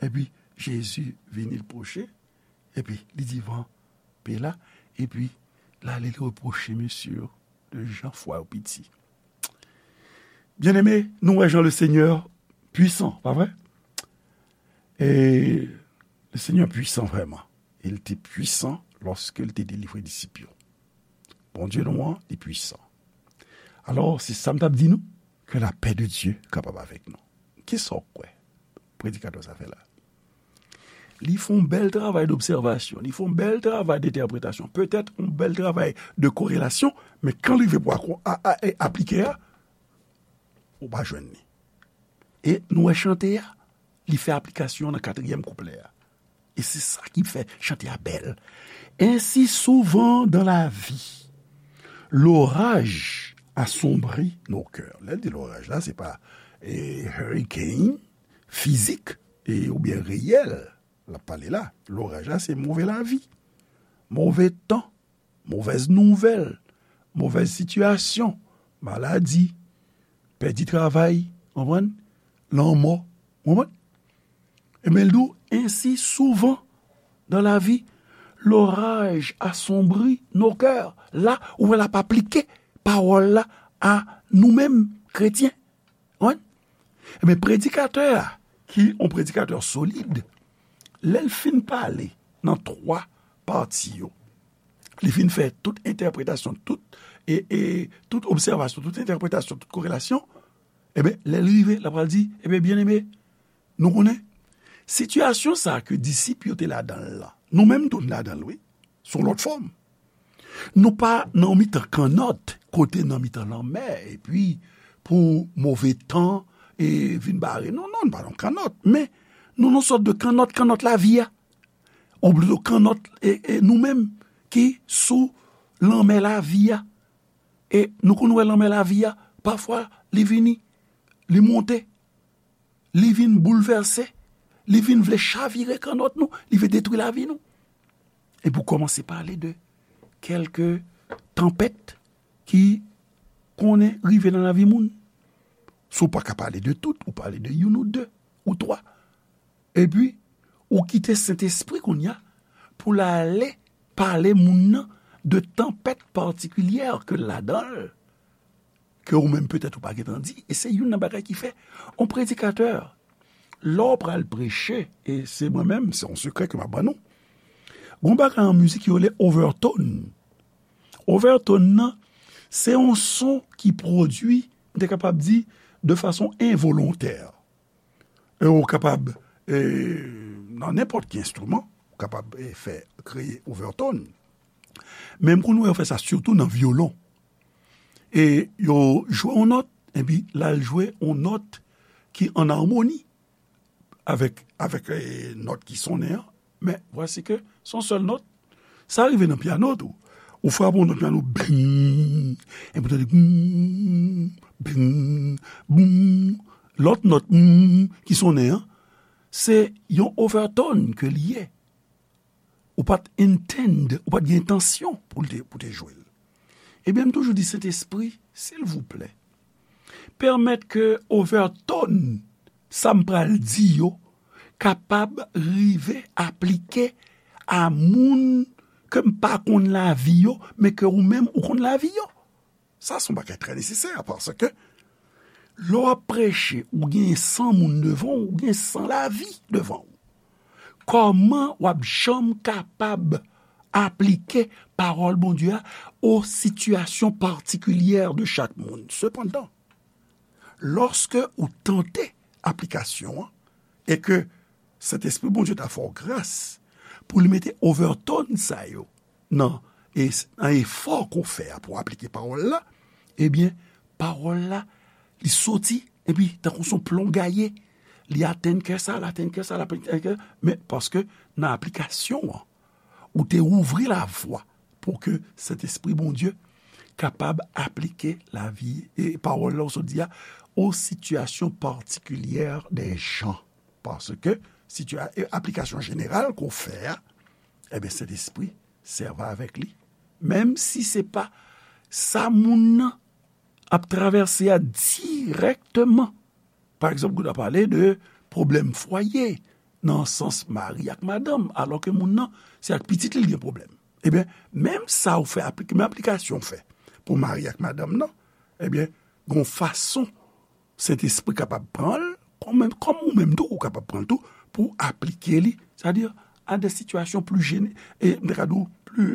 Epi Jezi vini, l pwoche, epi li di van pe la, epi l ale, li repwoche mesye yo de jan fwa yo piti. Bien-aimé, nou wè jan le Seigneur puissant, pa vre? E le Seigneur puissant vrèman. E l te pwisan lòske l te delivre disip yo. Bondye nou an, li pwisan. Alò, se sa m t ap di nou, ke lapè de Dye kapab avèk nou. Kisa w kwè predikatè sa fè la? Li fè yon bèl travay dobsèvasyon, li fè yon bèl travay dentèpretasyon, petèt yon bèl travay de korelasyon, men kan l rive pou a, a, a, aplike a, ou pa jwenn li. E nou wè chante a, li fè aplikasyon nan katriyèm kouplè a. E se sa ki fè chante a bèl. Ainsi souvent dans la vie, l'orage assombrit nos cœurs. Lè l di loraj la, se pa e, hurricane fizik e, oubyen reyèl l ap pale la. Loraj la, se move lavi, move tan, movèz nouvèl, movèz sitiyasyon, maladi, pèdi travay, konprann? Lanmò, konprann? Ebyen, l di w, ainsi souvent dans la vie, l'orage assombrit nos cœurs. La, ou wè l ap aplike pawòl la a nou menm, kretyen. Konprann? Ebyen, predikatè a, ki yon predikatè solid, lè l fin pale nan twa pati yo, li fin fè tout entèpretasyon, tout, e, e, tout obsèvasyon, tout entèpretasyon, tout korelasyon, ebyen, lè l rive, l ap pral di, ebyen, byeneme, nou konnen, sitiyasyon sa a ke disip yo te ladan l lan, nou menm tou n ladan l, wi, sou yon lòt fòm. Nou pa nan yon mitan kannòt, kote nan mitan lanmè, epi pou move tan e vin bare nou. Non, nou pa nan kannòt, men nou nan sòt de kannòt, kannòt lavi a. Ou plito kannòt e, e nou menm ki sou lanmè lavi a. E nou konn wè lanmè lavi a, pafwa li vini, li monte, li vin boulvèse, li vin vle chavire kannòt nou, li vle detwi lavi nou. E pou kòmanse pale de kèlke tanpèt ki konnen rive nan lavi moun. Si w pa ka pale de tout, ou pale de youn ou de, ou twa. Epi, ou kite Sentespri kounye a pou l ale pale moun nan de tanpèt patikilyè ke l ladan l, ke ou menm petèt ou pa gentan di, e se youn nan bagay ki fè yon predikatè, lè w pral preche, e se mwen menm, se yon sekrè ke m ap ban nou, gon bagay an mizik yo rele overtone. Overtone nan, se yon son ki pwodui, m te kapab di, de fason envolontè. E ou kapab, e, nan nenpòt ki enstriman, ou kapab, e, fè, kreye overtone. Men m konn wè yo fè sa sitou nan vyolon. E yo jwe yon nòt, epi l al jwe yon nòt ki an amoni avèk, avèk, e, nòt ki sonnen an. Men, vwasi ke se yon sèl nòt. Sa rive nan pyano tou. Ou frape yon nòt pyano, bing, epi w tande, bing, bing, bing. Lòt nòt, bing, ki sonnen an, se yon overtone ke li ye. Ou pa t intend, ou pa t gen entansyon pou l te, pou te jwe l. Ebyen, m toujou di, Sentespri, silvouplè, pèmèt ke overtone sa m pral di yo kapab rive aplike a moun ke m pa konn lavi yo, men ke ou menm ou konn lavi yo. Sa se yon bagay trè nesesè, paske lè w ap preche, ou gen san moun devan w, ou gen san lavi devan w. kòman w ap janm kapab aplike pawòl Bondye a o sitiyasyon patikilye de chak moun. Sepandan, lòske ou tante aplikasyon an, e ke Sentespri Bondye ta fè w gras pou li mete overtone sa yo nan, e, nan efò ke w fè a pou w aplike pawòl la, ebyen, pawòl la, li soti, epi tankou s on plon gaye, li atenn kè sa, li atenn kè sa, li atenn kè, men paske nan aplikasyon an, ou te ouvri lavwa pou ke Sentespri Bondye kapab aplike lavi, e pawòl la ou sot di a, o sitiyasyon patikilye de jan. Paske sitiya-, e aplikasyon jeneral ke w fè a, ebyen, Sentespri sèvi avèk li. Menm si se pa sa moun nan ap travèse a dirèkteman. Pa egzanp, ou ta pale de pwoblèm fwaye, nan sans mari ak madanm, alò ke moun nan, se ak pitit li l gen pwoblèm. Ebyen, menm sa ou fè aplike, menm aplikasyon ou fè pou mari ak madanm nan, ebyen, gon fason Sentespri kapab pran l, kòm, kòm ou menm tou, ou kapab pran l tou, pou aplike li, sètadi a de sitiyasyon pli jene-, e, m ta ka di w,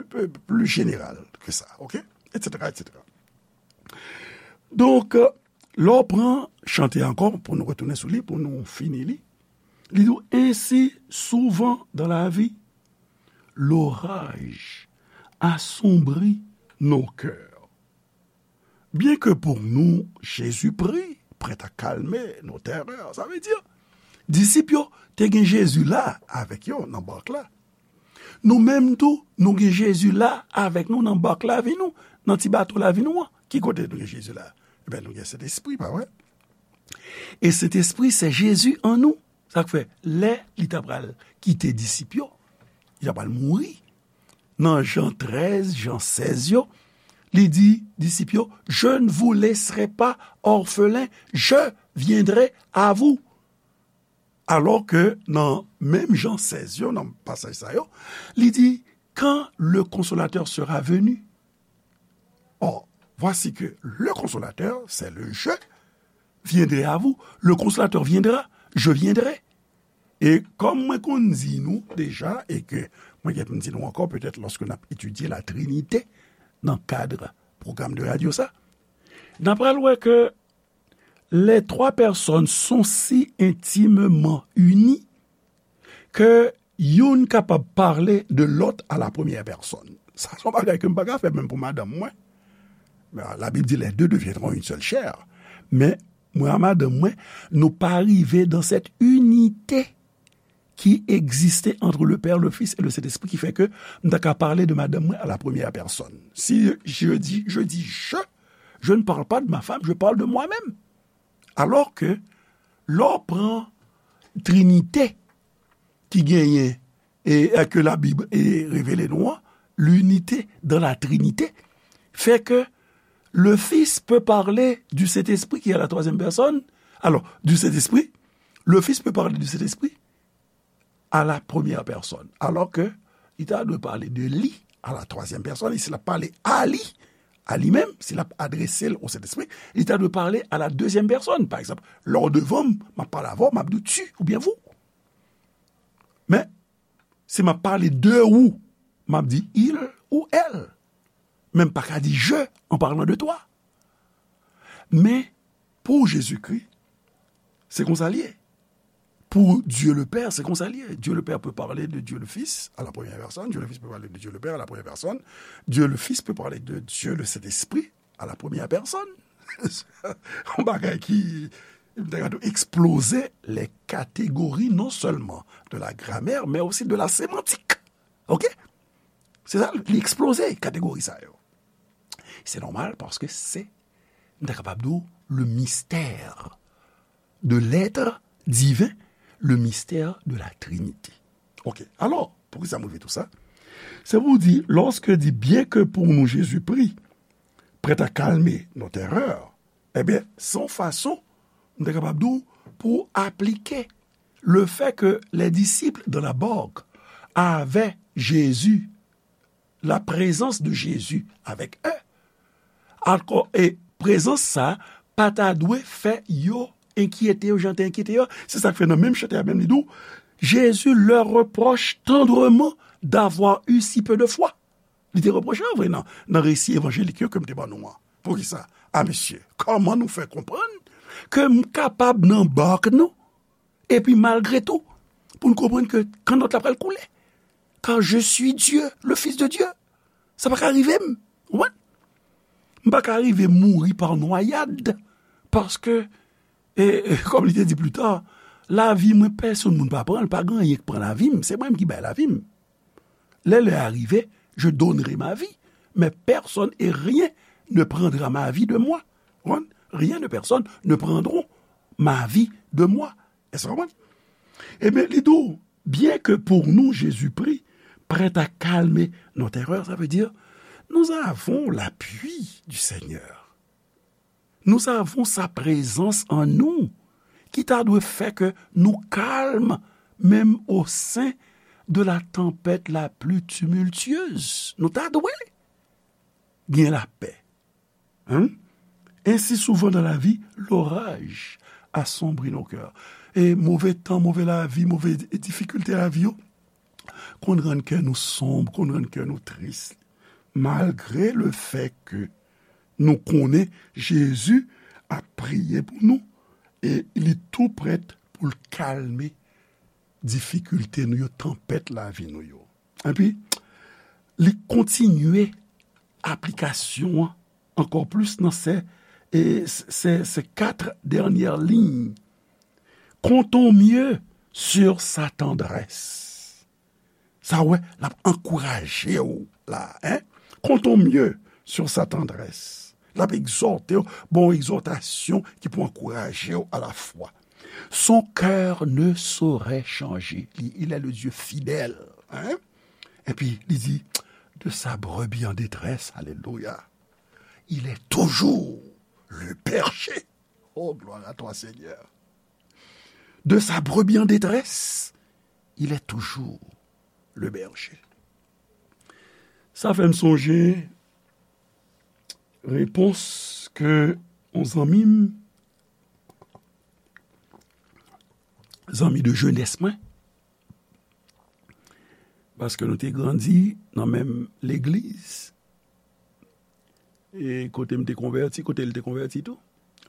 pli, pli jeneral ke sa, oke? Etsetera, etsetera. Donk, lè w pran chante ankò, pou nou retounen sou li, pou nou fini li, li di w, ainsi, souvent dans la vie, l'orage assombrit nos cœurs. Bien que pour nous, Jésus prit, prêt à calmer nos terreurs. Sa vle di, disip yo te gen Jezi la avèk yo nan bark la. Nou menm tou, nou gen Jezi la avèk nou nan bark lavi nou, nan ti bato lavi nou an. Ki kote nou gen Jezi la? Ebyen, nou gen Sentespri, pa vre? E Sentespri, se Jezi an nou. Sa k fè, lè li ta pral kite disip yo, li ta pral mouri. Nan Jan trèz, Jan sèz yo, li di disip yo, je ne vous laisserai pas orphelins, je viendrai à vous. Alò ke nan menm Jan sèz yo, nan pasaj sa yo, li di, quand le Consolateur sera venu. Or, voici que le Consolateur, c'est le je viendrai à vous. Le Consolateur viendra, je viendrai. E kòm mwen konn di nou deja, e ke mwen gen pou m di nou ankò, petèt lòske n ap etidye la Trinite nan kad pwogram de radyo sa, n ap pral wè ke les trois personnes sont si intimement unies que youn kapab pale de lòt à la première personne. Sa se yon bagay ke m pa ka fè menm pou madanm mwen. Men, la Bible dit, les deux deviendront une seule chair. Men, mwen a madanm mwen, nou pa rive dans cette unité qui existait entre le Père, le Fils et le Saint-Esprit, ki fè ke m ta ka pale de madanm mwen à la première personne. Si je dis, je dis je, je ne parle pas de ma femme, je parle de moi-même. Alò ke, lè w pran Trinite ki genyen e, e ke Labib e revele nou an, l'unité dans la Trinité, fait que le Fils peut parler du Saint-Esprit qui est à la troisième personne. Alors, du Saint-Esprit, le Fils peut parler du Saint-Esprit à la première personne. Alors que li ta dwe pale de li à la troisième personne, e si l ap pale a li, a li menm, si l ap adrese l o Sentespri, li ta dwe pale à la deuxième personne. Pa egzanp, lè w devan m, m ap pale avè w, m ap di w tu oubyen vous. Men, si m ap pale de ou, m ap di il ou elle. Men m pa ka di je en parlant de toi. Men, pou Jezikri, se konsa l ye. Pour Dieu le Père, c'est comme ça lié. Dieu le Père peut parler de Dieu le Fils à la première personne. Dieu le Fils peut parler de Dieu le Père à la première personne. Dieu le Fils peut parler de Dieu le Saint-Esprit à la première personne. Yon bagay ki, m ta ka di w, eksploze les catégories non seulement de la grammaire, mais aussi de la sémantique. Ok? Se sa, li eksploze kategori sa yo. Se nòmal paske se, m ta kapab di w, le mystère de l'être divin, le mystère de la Trinité. Ok, alò, poukisa m rive tou sa? Se pou di, lòske di, bien que pour nous Jésus prit, prêt à calmer nos terreurs, ebyen, se yon fason, m ta kapab di w, pou aplike le fait que les disciples dans la barque avaient Jésus, la présence de Jésus avec eux. Ankò, e prezans sa pa ta dwe fè yo enkyete yo, jan te enkyete yo. Se sa k fè nan menm chante a menm li di w, Jésus leur reproche tendrement d'avoir eu si peu de foi. Li te repwoche an vre nan, nan resi evanjelik yo ke m te ban nou an. Poukisa? A mesye, kòman nou fè konprann ke m kapab nan bak nou, epi malgre tou, pou n konprann ke kannòt la pral koule? Car je suis Dieu, le Fils de Dieu. Sa pa ka rive m. Ou konprann? M pa ka rive mouri pa nwayad. Paske, e, e, kòm li te di pli ta, lavi mwen, pèsonn moun pa pran l, pa gen anyen k pran lavi m, se mwen menm ki bay lavi m. Lè lè a rive, je donnerai ma vie, mais personne et rien ne prendra ma vie de moi. Ou konprann? Rien ne personne ne prendront ma vie de moi. Èske w konprann? Ebyen, li di w, bien que pour nous Jésus prie, prêt à calmer nos terreurs, ça veut dire, nous avons l'appui du Seigneur. Nous avons sa présence en nous, ki ta dwe fè ke nou kalm, menm au sein de la tempête la plus tumultueuse. Nou ta dwe gen lapè. Hein? Ainsi, souvent dans la vie, l'orage assombrit nos cœurs. E move tan, move lavi, move difikilte lavi yo, konn rann kè nou sonb, konn rann kè nou tris. Malgre le fè ke nou konnen Jezi ap priye pou nou, e li tou prèt pou l kalme difikilte nou yo, tanpèt lavi nou yo. Epi, li kontinye aplikasyon an ankò plis nan se, e, se, se kat dènyè liy. Comptons mieux sur sa tendresse. Sa wè, l ap ankouraje w la, hein? Comptons mieux sur sa tendresse. L ap egzòte w, bon egzòtasyon ki pou ankouraje w a la fwa. Son cœur ne saurait changer. Li, il est le Dieu fidèle, hein? Epi, li di, de sa brebis en détresse, alelouya, il est toujours le berger. Oh, gloire à toi, Seigneur. De sa brebis en détresse, il est toujours le berger. Sa fè m sonje repons ke yon zanmi m, zanmi de jenès mwen, paske nou te grandi nan menm legliz, e kote m te konvèti, kote l te konvèti tou,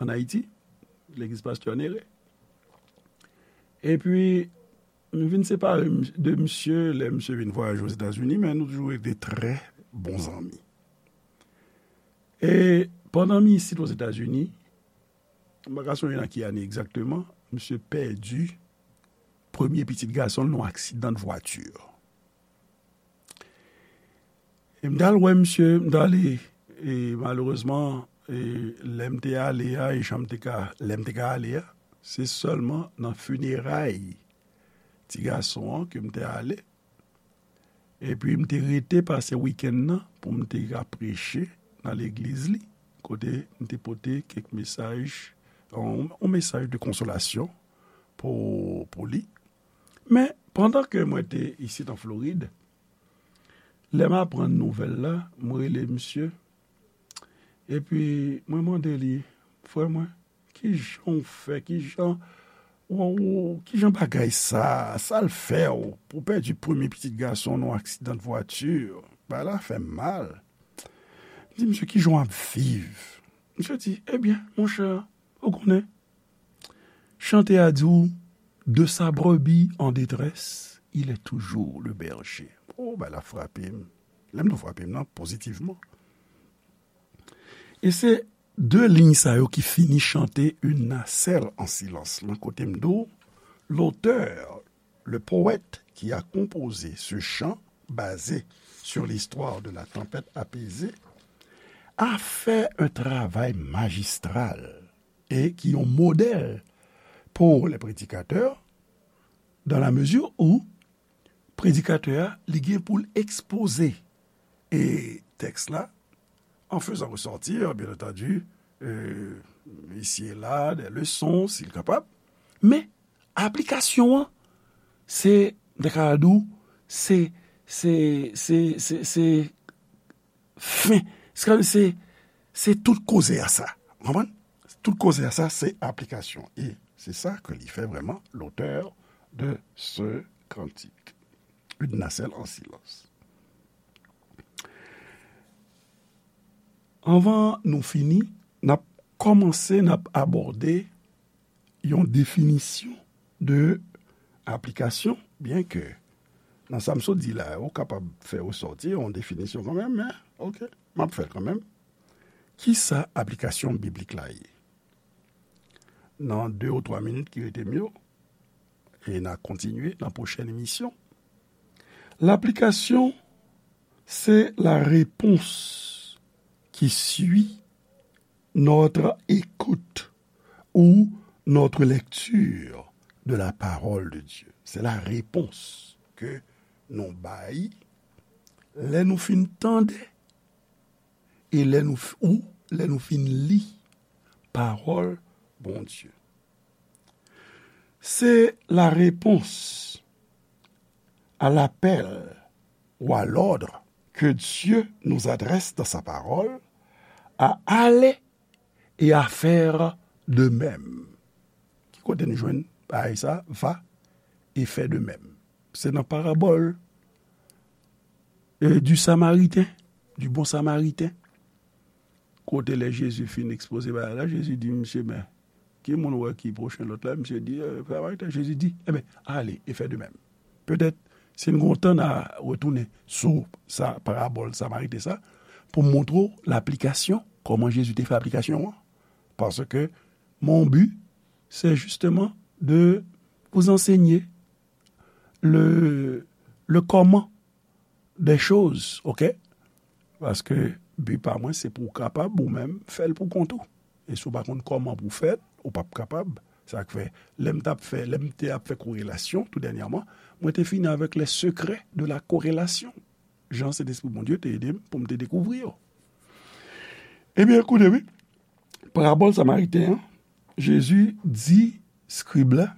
ann Ayiti, legliz pastè Nere. Epi, m vin separe m, de misye lè misye vin vwayaje Ozetazini, men nou toujou rete trè bon zanmi. E pandan m isit Ozetazini, m pa ka sonje nan ki ane egzakteman, misye pèdi premye pitit gason l nan yon aksidan de vwati. E m t al wè misye, m t ale, e malerezman, e lè m te ale a, e jan m te ka, lè m te ka ale a, se sèlman nan fineray ti gason an ke m te ale. Epi m te rete pase wikenn nan pou m te ka preche nan legliz li, kote m te pote kèk mesaj, yon, yon mesaj de konsolasyon pou, pou li. Men, pandan ke mwen te isit an Florid, lè m aprann nouvèl la, mwen rele misye, epi mwen mande li, frè mwen, kijan w fè, kijan, w, w, kijan bagay sa, sa l fè w, pou w pèdi premye pitit gason w nan yon aksidan de vwati, bagay la fè m mal. M di, misye, kijan w ap viv? Misye di, ebyen, monchè, ou konnen, chante a di w, de sa brebis en détresse, il est toujours le berger. Oh, bagay la frape m. Lè m di w frape m nan, pozitivman. E se de liy sa yo ki fini chante Une nacelle en silence lan, kote m di w, l'auteur, le poète qui a composé ce chant basé sur l'histoire de la tempête apaisée, a fait un travail magistral et qui est un modèle pour les prédicateurs, dans la mesure où predikatè a, li gen pou l ekspoze, e, tèks la, en faisant ressortir, bien entendu, euh, ici et là, des leçons, si l kapab. Men, aplikasyon an, se, m ta ka di w, se, se, se, se, se fen. Se, se, se tout koze a sa. Ou konprann? Tout koze a sa, se aplikasyon. E se sa ke li fè vrèman, l'auteur, de ce cantique. Une nacelle en silence. Anvan nou fini, n ap kòmanse, n ap abòde yon definisyon de aplikasyon, byen ke nan sa m sot di la, ou kapab fè resòti yon definisyon kanmenm, men, oke, m ap fè l kanmenm. Kisa aplikasyon biblik la ye? Nan de ou twa minit ki rete m yo, e n a kontinye nan pwochèn emisyon. Laplikasyon, c'est la réponse qui suit notre écoute ou notre lecture de la parole de Dieu. C'est la réponse que nou bay lè nou fin tande e lè nou f-, ou lè nou fin li pawòl Bondye. C'est la réponse à l'appel ou à l'ordre que Dieu nous adresse dans sa parole à aller et à faire de même. Ki kote nou jwenn bagay sa, va et fais de même? Se nan parabòl, euh, du Samaritain, du bon Samaritain. Kote lè Jezi fin ekspoze bagay la, Jezi di misye, men, ki moun ou wè ki pwochen lòt la? Misye di, euh, Samaritain. Jezi di, enben, ale e fè de menm. Petèt, si n gen tan, n a retounen sou sa, parabòl Samariten sa, pou montre w laplikasyon, kòman Jezi te fè aplikasyon an. Paske mon but, c'est justement de vous enseigner le, le comment des choses, oke? Paske bi pa mwen, se pou w kapab ou menm fè l pou kont ou. E si w pa konn kòman pou w fè l, ou p ap kapab. Sa k fè, lè m t ap fè, lè m te ap fè korelasyon tou dènyèman, mwen te fini avèk les secrets de la corrélation. Jan Sentespri Bondye te ede m pou m te dekouvri yo. Ebyen, koute, wi. Parabòl Samariten an, Jezi di skrib la,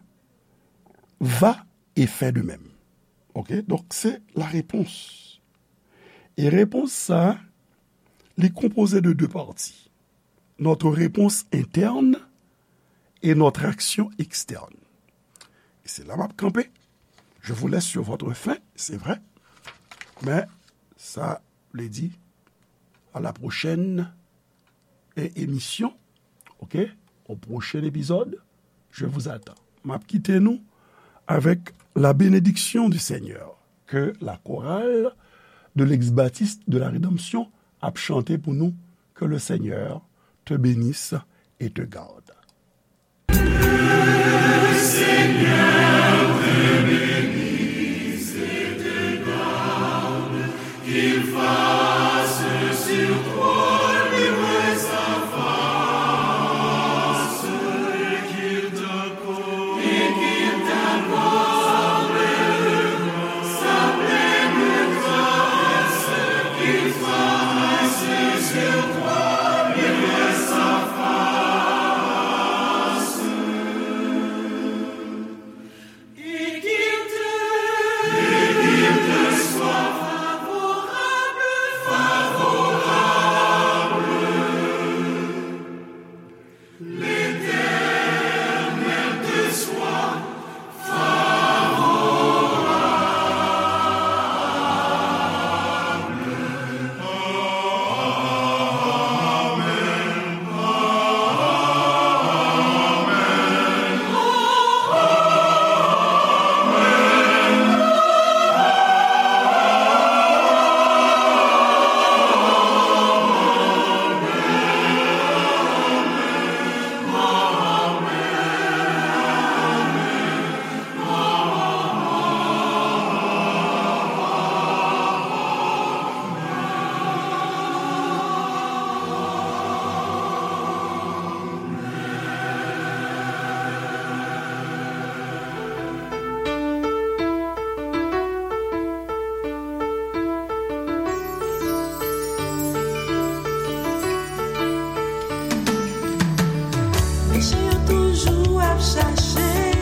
va et fais de même. Oke? Donk, se la repons. E repons sa, li konpoze de de pati. Notre réponse interne et notre action externe. E se la m ap kanpe. Je vous laisse sur votre faim, c'est vrai. Men, sa vle di, à la prochaine é-, émission, oke? Au prochain épisode, je vous attends. M ap kite nou avec la bénédiction du Seigneur. Que la chorale de l'ex-baptiste de la Rédemption ap chante pou nou. Que le Seigneur te bénisse et te garde. Mesye yo toujou ap chache